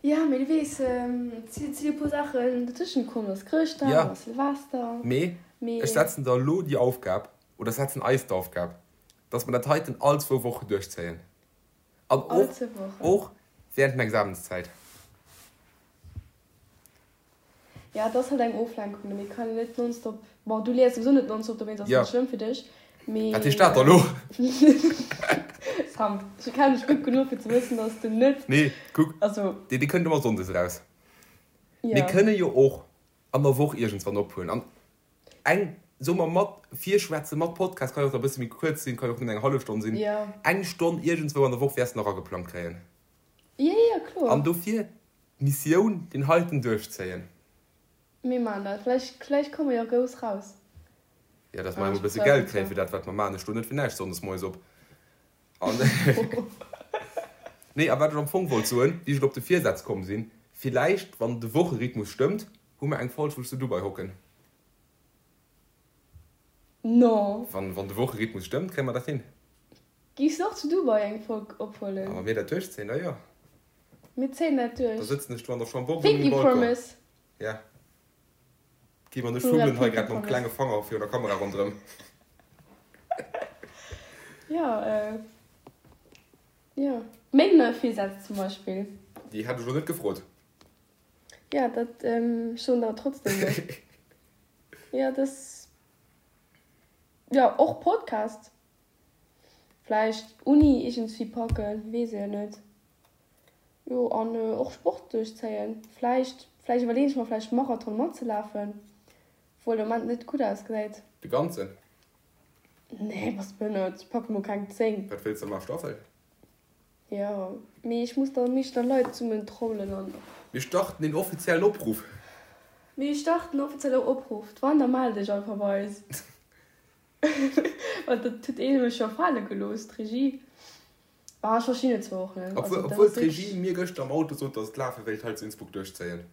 Jo, mee du weess, et sinn e puer Saachen dotëschent komm, et ass Chrëschtdag, et ass Silvester. Mee ech setzen der elo déi Aufgab, oder setzen eis d'Aufgab, dass mer dat heiten all zwou Wochen duerchzéien. An och während den Examenszäit. Jo, et ass halt eng Oflenkung, mee et kann een net nonstop, bon, du liest souwisou net nonstop, dowéinst ass et net schlëmm fir dech, mee. Wat heescht dat da lo? Sam, ech kennen dech gutt genuch fir ze wëssen, dass du net. Nee, kuck, also dee kënnt ëmmer sonndes eraus. Mir kënne jo och an der Woch iergendswann ophuelen an eng, soe mer, mat Virschwätze mat Podcast, kann jo och da e bësse méi kuerz sinn, kann jo och nëmmen eng hallef Stonn sinn, eng Stonn iergendswou an der Woch wäers de nach ageplangt kréien. Jo, jo, kloer. An dofir D'Missioun, deen heiten duerchzéien. Mir maachen dat. Vläicht, vläicht komme mer jo grouss raus. Jo, dass mer emol e bësse Geld kréien fir dat, wat mer maachen. Ech stoen net fir näischt sonndes moies op. An, nee, a wat ech am Fong wollt soen, wéi ech elo op de Virsätz komm sinn, Villäicht, wann de Wocherhythmus stëmmt, hu mer eng Folg, wou ech zu Dubai hocken. No. Wann, wann de Wocherhythmus stëmmt, kréie mer dat hin. Giffs de och zu Dubai eng Folg ophuelen? A wa mir dat duerchzéien, da jo. Mir zéien dat duerch. Da sëtzen ech do an der Chambourg un mengem Balcon. Promise. Ja. Kim an ech fummelen hei grad mam klenge Fanger virun der Kamera ronderëm. Jo, jo. Meng nei Virsätz zum Beispill. Déi hat ech elo net gefrot. Jo, dat, ech soen der trotzdem elo. Jo, dass, jo, och Podcast. Vläicht Uni iergendswéi packen, weess ee jo net. Jo, an och Sport duerchzéien. Vläicht, vläicht iwwerleeën ech mer vläicht Marathon matzelafen, obwuel de Moment net gutt ausgesäit. De ganzen? Nee, bass behënnert, ech packe mol keng 10. Wat wéills de maachen, Staffel? Jo, mee ech muss da meeschter Leit zesummen trommelen an. Mir starten een offiziellen Opruff! Mir starten offizielle Opruff, d'Wanda mell dech einfach bei eis. Well dat huet ee mech jo fale gelooss, d'Regie. Ah, ech verstinn et zwar och net. Obwuel, obwuel d'Regie mir gëschter am Auto sot, dass et lafe wéilt hei zu Innsbruck duerchzéien.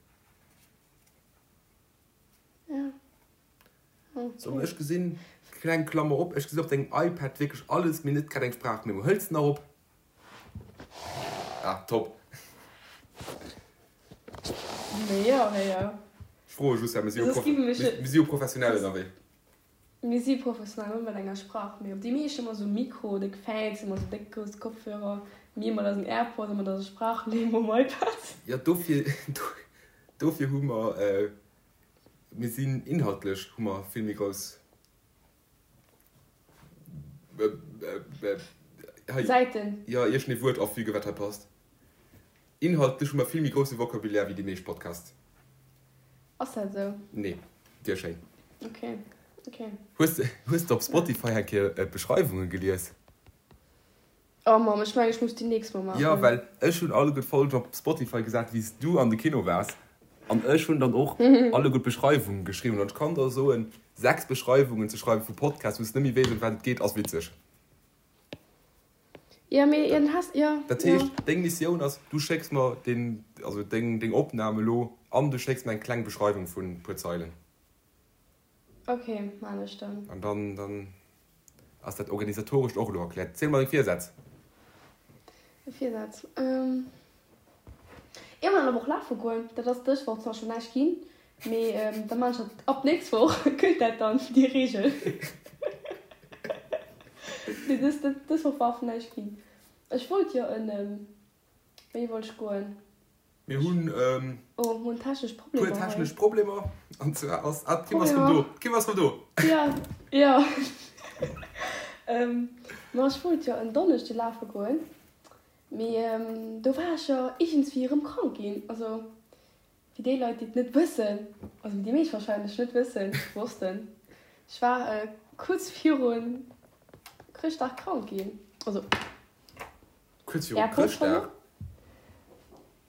Ja. Okay. So, ech gesinn, kleng Klammer op, ech gesinn op dengem iPad wierklech alles, mee net grad eng Sprachmemo. Hëls de nach op? Ah, top. Mee jo, mee jo. Ech froe just, well mir si jo, mir si jo professionell ënnerwee. Mir si professionell net mat enger Sprach, mee op déi meescht ëmmer sou Mikro, déck Fancy, ëmmer sou déck grouss Kopfhörer, mir mat eisen Airpods a mat eiser Sprachmemo um iPad. Jo, dofir, dofir hu mer, mir sinn inhaltlech hu mer vill méi grouss hei, Säiten. Jo, iergendee Wuert afügen, wat hei passt. Inhaltlech hu mer vill méi grousse Vocabulaire wéi déi meescht Podcasts. Ass dat esou? Nee, wier schéin. Ok, ok. Hues de, hues de op Spotify eng Kéier d'Beschreiwunge gelies? Oh Mamm, ech mengen ech muss déi nächst Mol maachen. Jo, well ech hunn alleguer d'Folgen op Spotify gesat wéi s du an de Kino waars an ech hunn dann och alleguer d'Beschreiwunge geschriwwen an ech kann der soen, 6 Beschreiwungen ze schreiwen vu Podcasts wou s de net méi weess ëm wat et geet ass witzeg. Jo, mee jo, dann has, jo, Dat jo. heescht, deng Missioun ass, du schécks mer deen, also deng, deng Opnam elo an du schécks mer eng kleng Beschreiwung vun puer Zeilen. Ok, maan ech dann. An dann, dann ass dat Organisatorescht och elo erkläert. Ziel mer deng Virsätz. Virsätz, ähm, Iergendwann an der Woch lafe goen. Dat ass dës Woch zwar schonn näischt ginn, mee da maan ech dat ab nächst Woch, gëllt dat dann, déi Reegel. Mee dës, dës Woch war einfach näischt ginn. Ech wollt jo en, wéini wollt ech goen? Mir hunn e Oh, mir hunn technesch puer Problemer hei. technesch Problemer. An zwar ass, ah, d'Kim ass rëm do. Problemer. D'Kim ass rëm do. Ja, ja. Ma ech wollt jo en Donneschde lafe goen, mee do war ech jo iergendswéi erëm krank ginn. Also fir déi Leit, déi et net wëssen, also déi meescht warscheinlech net wëssen, wossten, ech war kuerz virun Chrëschtdag krank ginn. Also. Kuerz viru Chrëschtdag?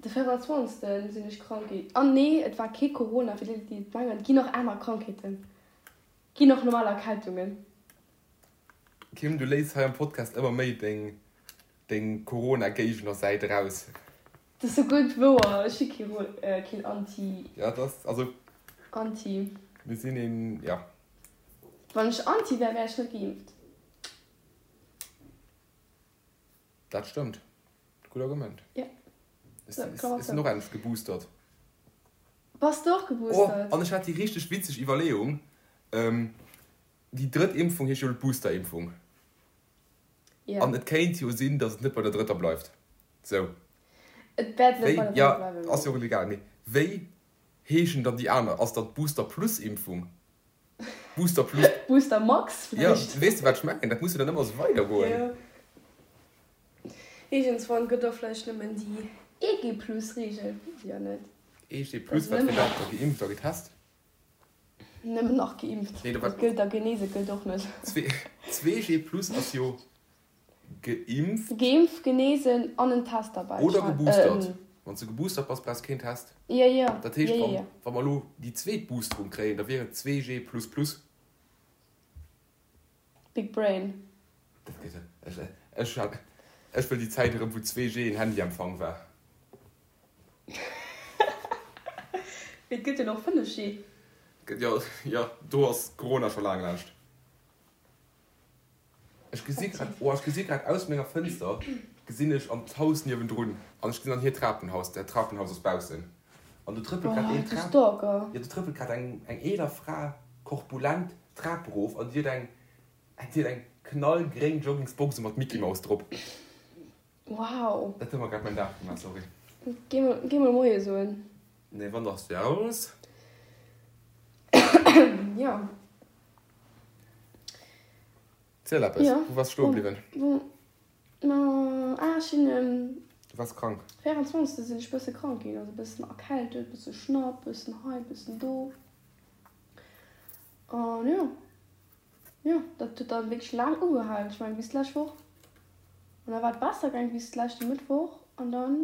De 24. Sinn ech krank ginn. An nee, et war kee Corona, fir déi, déi et mengen. Et ginn och aner Krankheeten. Et ginn och normal Erkältungen. Kim, du léiss hei am Podcast ëmmer méi deng, deng Corona-Géigner-Säit eraus. Dat ass sou gutt wouer. Ech si kee, keen Anti. Ja, dat ass, also. Anti. Mir sinn een, ja. Wann ech Anti wär, wär ech net geimpft. Dat stëmmt. Gutt Argument. Ja. Ech sinn och endlech geboostert. Bass de och geboostert? Oh, an ech hat déi richteg witzeg Iwwerleeung, déi drëtt Impfung heescht jo elo d'Boosterimpfung. Ja. An et kéint jo sinn, datt et net bei der drëtter bleift. Sou. Et wäert net bei der drëtter bleiwen. Jo, ass jo och egal. Mee wéi heeschen dann déi aner? Ass dann d'Booster-Plus-Impfung? Booster Plus. Booster Max vläicht. Jo, weess de wat ech mengen? Dat muss jo dann ëmmer esou weidergoen. Jo. Iergendswann gëtt och vläicht nëmmen déi EG Plus Reegel, weess ech jo net. EG Plus, wat fir dat? Da geimpft a getest? Nëmmen nach geimpft. Nee, dat gëllt da genese gëllt och net. 2G Plus ass jo Geimpft. Geimpft, genesen an en Test derbäi. Oder geboostert. Wann s de geboostert bass, brauchs keen Test. Jo, jo. Dat heescht, wann, wa mer elo déi zweet Boosterung kréien, da wier et 2G plus plus. Big Brain. Dat gëtt et. Ech, ech, ech wëll déi Zäit erëm, wou 2G en Handyempfang war. Mee et gëtt jo nach 5G. Gëtt jo, jo, do ass Corona scho laang laanscht. Ech gesi grad, oh, ech gesi grad aus menger Fënster gesinn ech an d'Haus niewendrun an ech gesinn an hiert Trapenhaus, dat Trapenhaus ass baussen an do trëppelt grad een Trap, jo, do trëppelt grad eng eng eeler Fra korpulent d'Trap erof an déi huet eng, déi huet eng knallgréng Joggingsbox mat Mickey Mouse drop. Wow. Dat huet mer grad mäin Dag gemaach, sorry. Géi mol, géi mol Moie soen. Nee, wann dachs du aus? Jo. Ziel eppes, Jo. wou waars stoe bliwwen? Wou, ma, ah, ech sinn um. Du waars krank. 24. sinn ech bësse krank ginn, also bëssen erkältet, bësse Schnapp, bëssen hei, bëssen do. An jo, jo, dat huet dann wierklech laang ugehalen, ech mengen bis d'lescht Woch. An da war et besser gaang bis leschte Mëttwoch an dann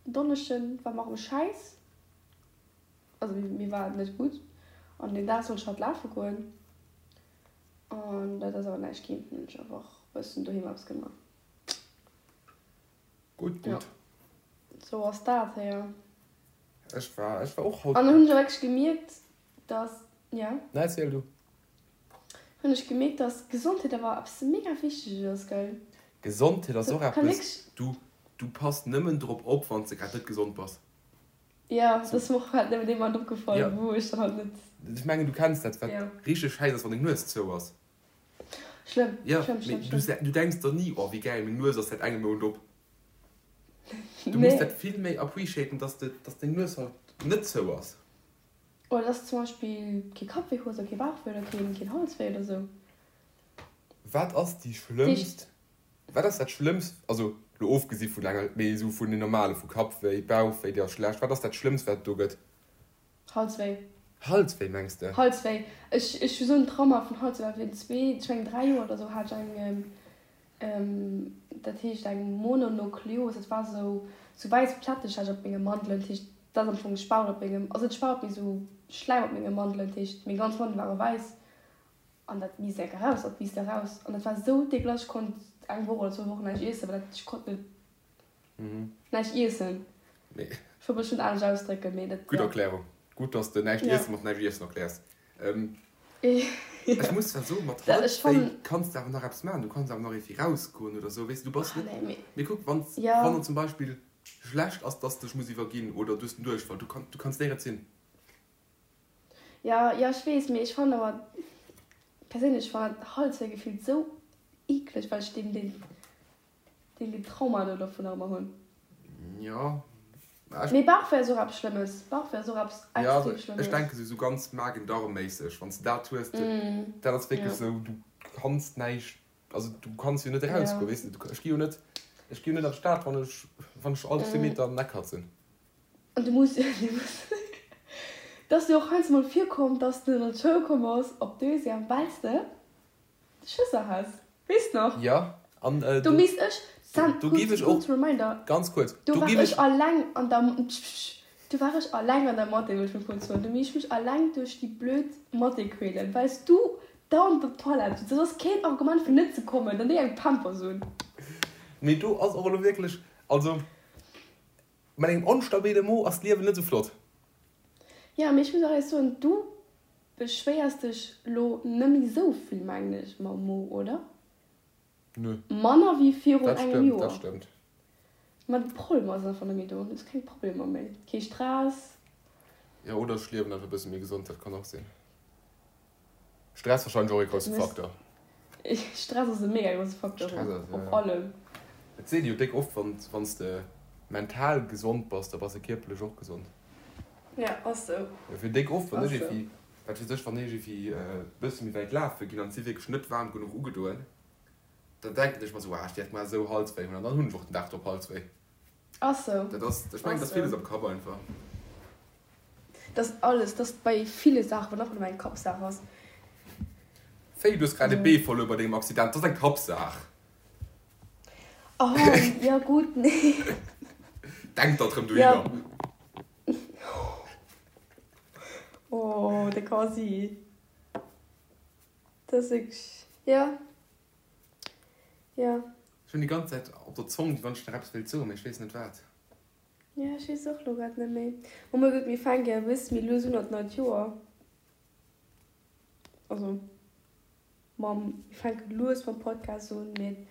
Donneschden war mer erëm schäiss. Also mir war et net gutt an deen Dag sollt ech halt lafe goen an dat ass awer näischt ginn. Hunn ech einfach bëssen doheem eppes gemaach. Gutt, Ja, gutt. sou ass dat héier. Ech war, ech war och haut. An dann hunn ech och wierklech gemierkt, dass, ja? Nee, erziel du. Hunn ech gemierkt, dass Gesondheet awer eppes mega Wichteges ass, gell? Gesondheet ass och Kann eppes, wierklech. du, du pass nëmmen drop op, wann s de grad net gesond bass. Jo, dat ass mer och halt nëmmen dee Moment opgefall, Ja. wou ech dann halt net. Ech mengen, du kenns dat, wat Ja. richteg schäiss ass, wann deng Nues zou ass. Schlëmm, Ja, schlëmm, mee schlëmm, du, schlëmm. du denks der ni, oh wéi gäil, meng Nues ass säit engem Mount op. Du muss Nee. dat vill méi appreciaten, dass de, dass deng Nues halt net zou ass. Oder dass de zum Beispill kee Kappwéi hues oder kee Bauchwéi oder keen, keen Halswéi oder sou. Wat ass déi schlëmmst Wat ass dat Schlëmmst, also lo ofgesi vun enger, mee esou vun den normale, vu Kappwéi, Bauchwéi, dir ass schlecht, wat ass dat Schlëmmst wat et do gëtt? Halswéi. Halswéi mengs de? Halswéi. Ech ech hu sou en Trauma vun Halswéi, well virun zwee, ech mengen 3 Joer oder sou hat ech eng, dat heescht eng Mononukleos, dat war sou sou wäiss Plätteg hat ech op menge Mandelen, dat heescht dat ass am Fong Spaut op mengem, also net Spaut mee sou Schläim op menge Mandelen, dat heescht meng ganz Mandele ware wäiss an dat misst enk eraus, dat misst eraus an dat war sou dégueulasse, ech konnt eng Woch oder zwou Wochen näischt iessen, well dat ech konnt net. Näischt iessen. Nee. Ech wollt mech net anescht ausdrécken, mee dat. Gutt Erklärung. Gutt, dass de näischt iessen mat näischt iessen erkläers. Ech muss zwar soen, mat Halswéi kanns de awer nach eppes maachen. Du kanns awer nach iergendwéi rausgoen oder sou, weess de. Du bass net. Mee kuck, wann wann zum Beispill schlecht ass, dass de dech muss iwwerginn oder du hues den Duerchfall, du du kanns néierens hin. Jo, jo, ech weess, mee ech fannen awer perséinlech, ech fannen dat Halswéi gefillt sou eekleg, well ech deen, deen. Deen deen Trauma do dovun nach ëmmer hunn. Jo. Mee Bauchwéi ass och eppes Schlëmmes. Bauchwéi ass och eppes extrem Schlëmmes. Ech denken sou ganz Magen-Darm-méisseg, wann s de dat hues, dat ass wierklech sou, du kanns näischt, also du kanns jo net erausgoen, weess de. Ech gi jo net, ech gi jo net an d'Stad, wann ech, wann ech all zwee Meter den Eck hat sinn. An du muss, du muss, et ass jo och heiansdo mol virkomm, dass de an d'Schoul komm bass op Deuxième, well s de Schësser has, weess nach? Jo, an do misst ech, Sam, do giff ech och, kurz Reminder, ganz kuerz, do war ech alleng an der, pssst, do war ech alleng an der Mathé, wëll ech mol kurz soen, do misst ech mech alleng duerch déi blöd Mathé quälen, well s du dauernd op d'Toilette sutz. Dat ass keen Argument fir net ze kommen, dann déi eng Pampers un. Mee do ass och elo wierklech, also mat engem onstabile Mo ass d'Liewen net esou flott. Jo, mee ech muss och éierlech soen, du Beschwéiers dech lo nemmi sou vill mengen ech mam Mo, oder? Nö. Manner wéi virun Dat engem stëmmt, Joer. dat stëmmt. Ma d'Problemer sinn einfach nemmi do. Du hues keng Problemer méi, kee Stress. Jo, oder ech liewen einfach e bësse méi gesond, dat kann och sinn. Stress wahrscheinlech och ee grousse Faktor. Stress ass e mega grousse Faktor Stress ass, op ja. allem. Et seet ee jo déck oft, wann wann s de mental gesond bass, da bass de kierperlech och gesond. Ja, ass sou. Jo, fir déck oft, wann ech iergendwéi, wat weess ech, wann ech iergendwéi e bësse méi wäit lafe ginn an et si wierklech net waarm genuch ugedoen, dann denken ech mer sou, ah, ech wäert mar esou Halswéi hunn an dann hunn ech och den Dag drop Halswéi. Ass sou. Dat ass, ech mengen, et ass villes am Kapp einfach. Dat ass alles, dat ass bei ville Saachen, wann einfach nëmmen eng Kappsaach ass. Wéi, du hues grad e Bee verluer bei dengem Accident, dat ass eng Kappsaach. Oh, jo gutt, nee. Denk der drëm dohinner. Oh, de Quasi. Dat ass wierklech, jo, jo. Ech hunn déi ganz Zäit op der Zong, wéi wann ech nach eppes wéilt soen, mee ech weess net wat. Jo, ech weess och elo grad net méi. Oh mei gutt, mir fänke jo e bësse méi lues un an d'neit Joer. Also. Mam, mir fänke lues mam Podcast un, mee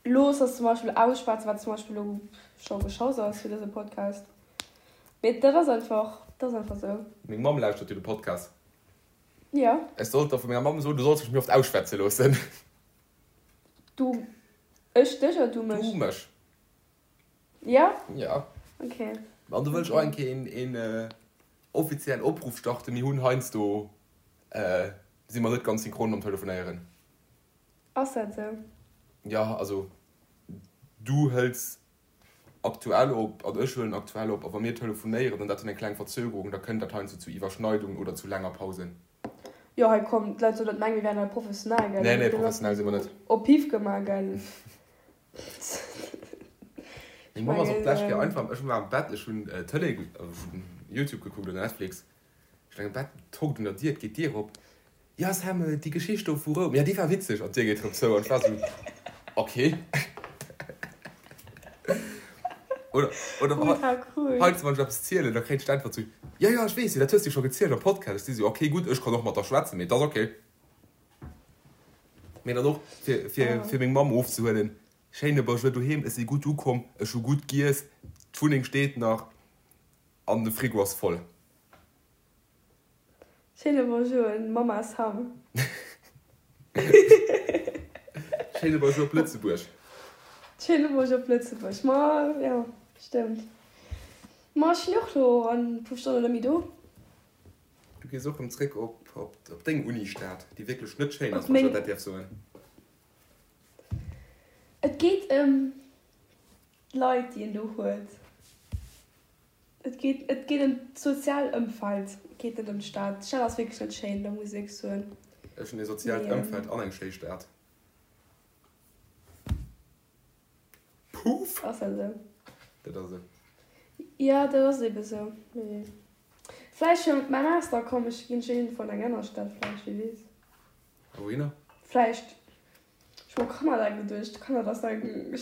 looss ass zum Beispill ausschwätzen, wat zum Beispill elo scho geschoss ass fir dëse Podcast. Mee dat ass einfach, dat ass einfach sou. Meng Mamm lauschtert jo de Podcast. Jo. Ech sollt der vu menger Mamm soen, du solls mech méi oft ausschwätze loossen. Du, ech dech oder du mech? Du mech. Jo? Jo. Ok. An do wëll ech och eng Kéier een, een offiziellen Opruff starten, Mir hunn heiansdo Si mer net ganz synchron mam Telefonéieren. Ass dat esou? Jo, also du hëls aktuell op an ech huelen aktuell op a wa mir telefonéieren an dat huet eng kleng Verzögerung, da kënnt dat heiansdo zu Iwwerschneidungen oder zu laanger Pausen. Jo, hei komm, d'Leit sollen net mengen, mir wären hei professionell, gell? Nee, nee, professionell si mer net. Op Piff gemaach, gell? Meng Mamm ass och d'lescht Kéier einfach, ech war am Bett, ech hunn Tëlee, ech hunn Youtube gekuckt oder Netflix, Ech leng am Bett, tonkt un der Dier, et geet d'Dier op, Jo Sam, déi Geschicht do vu Roum, jo déi war witzeg, an d'Dier geet rëm zou an ech war sou, ok. Oder, oder heiansdo wann ech eppes zielen, da kréien ech d'Äntwert sou, Jo jo ech weess jo, dat hues de jo scho gezielt am Podcast. Ech si sou, ok gutt, ech kann och mat der schwätzen, mee et ass ok. Mee dann och fir, fir, fir meng Mamm ofzehuelen, Schéine Bonjour doheem, ech si gutt ukomm, ech hu gutt giess, d'Wunneng steet nach an de Frigo ass voll. Schéine Bonjour un Mamma Sam. Schéine Bonjour op Lëtzebuerg. Schéine Bonjour op Lëtzebuerg. Ma jo, stëmmt. Ma ech sinn och lo an e puer Stonnen net méi do. Du gees och rëm zréck op op deng Uni-Stad, déi wierklech net schéin ass, wann ech dat däerf soen. Et geet ëm d'Leit, déi een do huet. Et geet, et geet ëm d'sozial Ëmfeld. Geet net ëm d'Stad. D'Stad ass wierklech net schéin, da muss ech wierklech soen. Ech hunn ee soziaalt Ëmfeld an eng schéi Stad. Puff! Ass dat esou? Dat ass esou. Jo, dat ass ebe sou. Mee vläicht fir mäi Master komm ech, ginn ech iergendwou an eng aner Stad vläicht, wie weess. A wouhinner? Vläicht, ech hu u Kanada geduecht. Kanada ass eng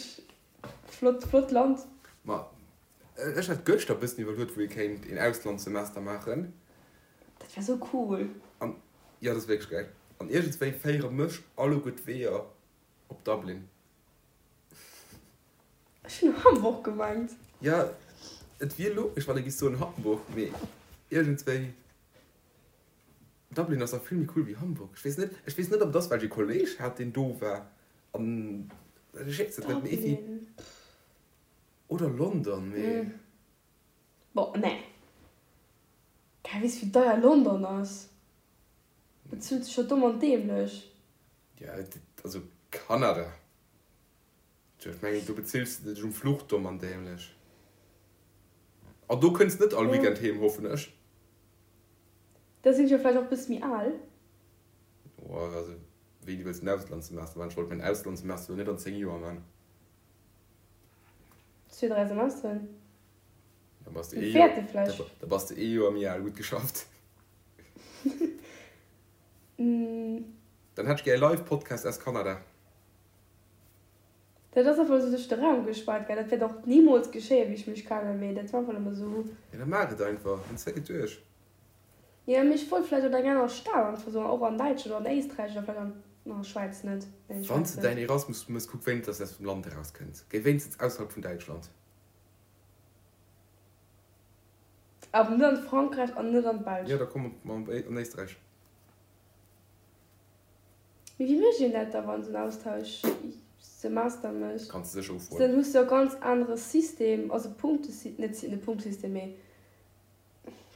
flott, flott Land. Ma ech hat gëschter e bëssen iwwerluet, wou ee kéint een Auslandssemester maachen. Dat wär sou cool. An, jo, dat ass wierklech gäil. An iergendswéi féiere mech alleguer d'Weeër op Dublin. Ech hunn Hamburg gemengt. Jo, et wier logesch, wann ee giff soen Hamburg, mee iergendswéi Dublin ass dach vill méi cool wéi Hamburg. Ech weess net, ech weess net, ob et ass, well ech ee Kolleg hat, deen do war an ech weess et net, mee iergendwéi. Dublin, pff. Oder London, mee. Boah, nee. Gell, weess wéi deier London ass? Bezuelt sech jo domm an dämlech. Jo, also Kanada. Tjo, ech mengen, do bezills de dech um Fluch domm an dämlech. An do kënns net all Weekend heem, hoffen ech. Da sinn ech jo vläicht och bësse méi al. Oh, also wéini wëlls de en Auslandssemester maachen? Ech wollt mäin Auslandssemester elo net an 10 Joer maachen. Zwee, dräi Semesteren. Da bass de ee Joer, da bass de ee Joer méi al. Gutt geschafft. Dann hätt ech gär e Live-Podcast aus Kanada. Dat ass einfach esou duerch de Raum gespaart, gell. Dat wäert och nimools geschéien, wéi ech mech kennen, mee dat war einfach nëmme esou. Jo, da maach et einfach, dann zéck et duerch. Jo, mee ech wollt vläicht an eng aner Stad einfach esou, och an Däitschland oder an Éisträich oder vläicht an, na, Schwäiz net, nee, Wann s Schwäiz de net. däin Erasmus mëss, kuck wéinstens, dass s de aus dem Land erauskënns. Géi wéinstens ausserhalb vun Däitschland. Awer net an Frankräich an net an d'Belsch. Jo, da komm an Éisträich. Mee wéi mécht een dat da wann en Austauschsemester mécht? Kanns de sécher ufroen. Dann hues de jo e ganz anere System, also Punktesy-, net net Punktesystem, mee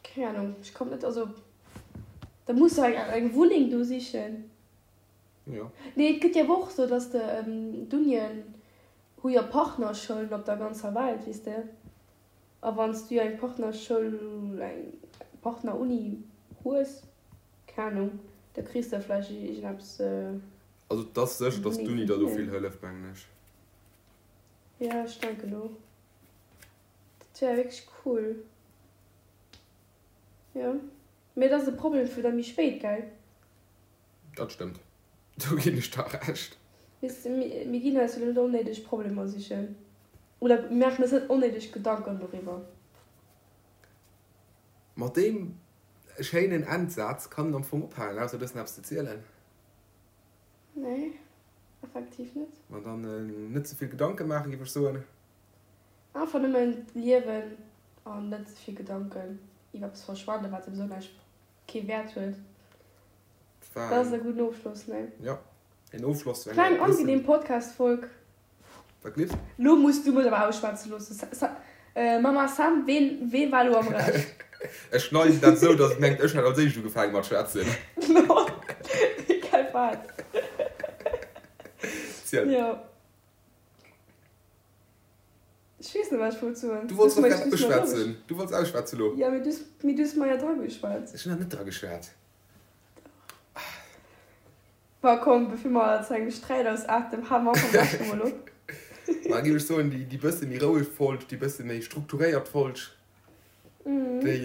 keng Ahnung, ech kommt net, also da muss de eng eng Wunneng do sichen. Jo. Nee, et gëtt jo awer och sou, dass de, d'Unien hu jo Partnerschoulen op der ganzer Welt, weess de. A wann s du jo eng Partnerschoul, eng Partneruni hues, keng Ahnung, da kriss de vläicht iergendeppes. Also et ass sécher, datt d'Uni der do vill hëlleft, mengen ech. Jo, ech denken och. Dat wär wierklech cool. Jo, mee et ass e Problem fir da méi spéit, gell? Dat stëmmt, do ginn ech der Recht. Weess de, mir ginn eis jo net onnéideg Problemer sichen. Oder mir maachen eis net onnéideg Gedanken doriwwer. Mat deem schéinen Endsaz kann een am Fong ophalen, ausser du hues nach eppes ze zielen. Nee, effektiv net. Ma dann net ze vill Gedanke maachen, géif ech soen. Einfach nëmmen liewen an net ze vill Gedanken iwwer eppes verschwenden, wat souwisou näischt, kee Wäert huet. Dat ass e gudden Ofschloss, nee? Jo, een Ofschloss zu enger. Kleng angenehm Podcast-Folg. Wat gleefs? Lo muss du mech awer ausschwätze loossen. Mama Sam, ween, wee war lo am Recht? Ech schneiden dat esou, dass et mengt, ech hätt als éischt ugefaange mat schwätzen. No, egal wat. Ziel. Jo. Ech weess net, wat ech wollt soen. Du wollts doch grad ausschwätzen. Du wollts ausschwätzen lo. Jo, mee du, mee du hues mer jo drageschwat. Ech hunn nach net drageschwat. Ma komm, bevir mer zu engem Sträit ausaarten, hale mer einfach am beschten emol op. Ma géif ech soen, déi bësse méi roueg Folg, déi bësse méi strukturéiert Folg, déi,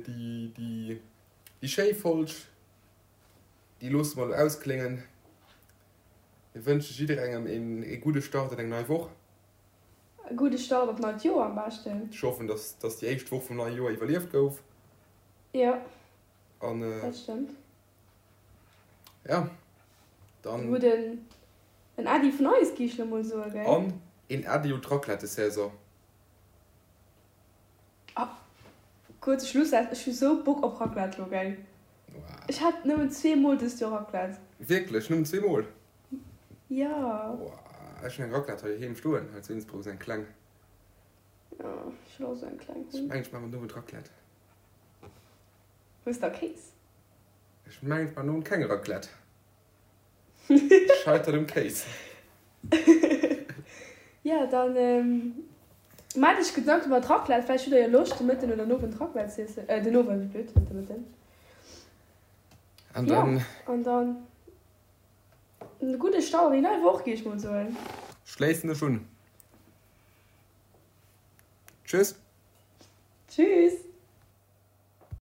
déi, déi schéi Folg, déi loosse mer elo auskléngen. Mir wënsche jidderengem ee gudde Start an eng nei Woch. E gudde Start an d'neit Joer am beschten. Ech hoffen, dass, dass déi éischt Woch vum neie Joer iwwerlieft gouf. Jo, An, dat stëmmt. Ja, dann. Gudden en Äddi vun eis, gi ech lo mol soen, gell? An een Äddi un d'Raclette-Saison. Ah, kuerze Schlussaz, ech hu sou Bock op Raclette lo, gell? Ech hat nëmmen zweemol dëst Joer Raclette. Wierklech? Nëmmen zweemol? Jo. Ech hunn eng Raclette hei heem stoen, hei zu Innsbruck, esou eng kleng. Jo, ech wëll och esou eng kleng hunn. Ech mengen, ech maachen den Owend Raclette. Hues da Kéis? Ech mengen et war non keng Raclette. Scheitert um Kéis. Jo, dann. Maacht iech Gedanken iwwer d'Raclette. Vläicht hutt der jo Loscht, de Mëtten oder den Owend Raclette z'iessen. Äh, den Owend, wéi blöd, net de Mëtten. An dann. Jo, an dann e gudde Start an déi nei Woch, géif ech mol soen. Schléissen ech un. Tschüss. Tschüss.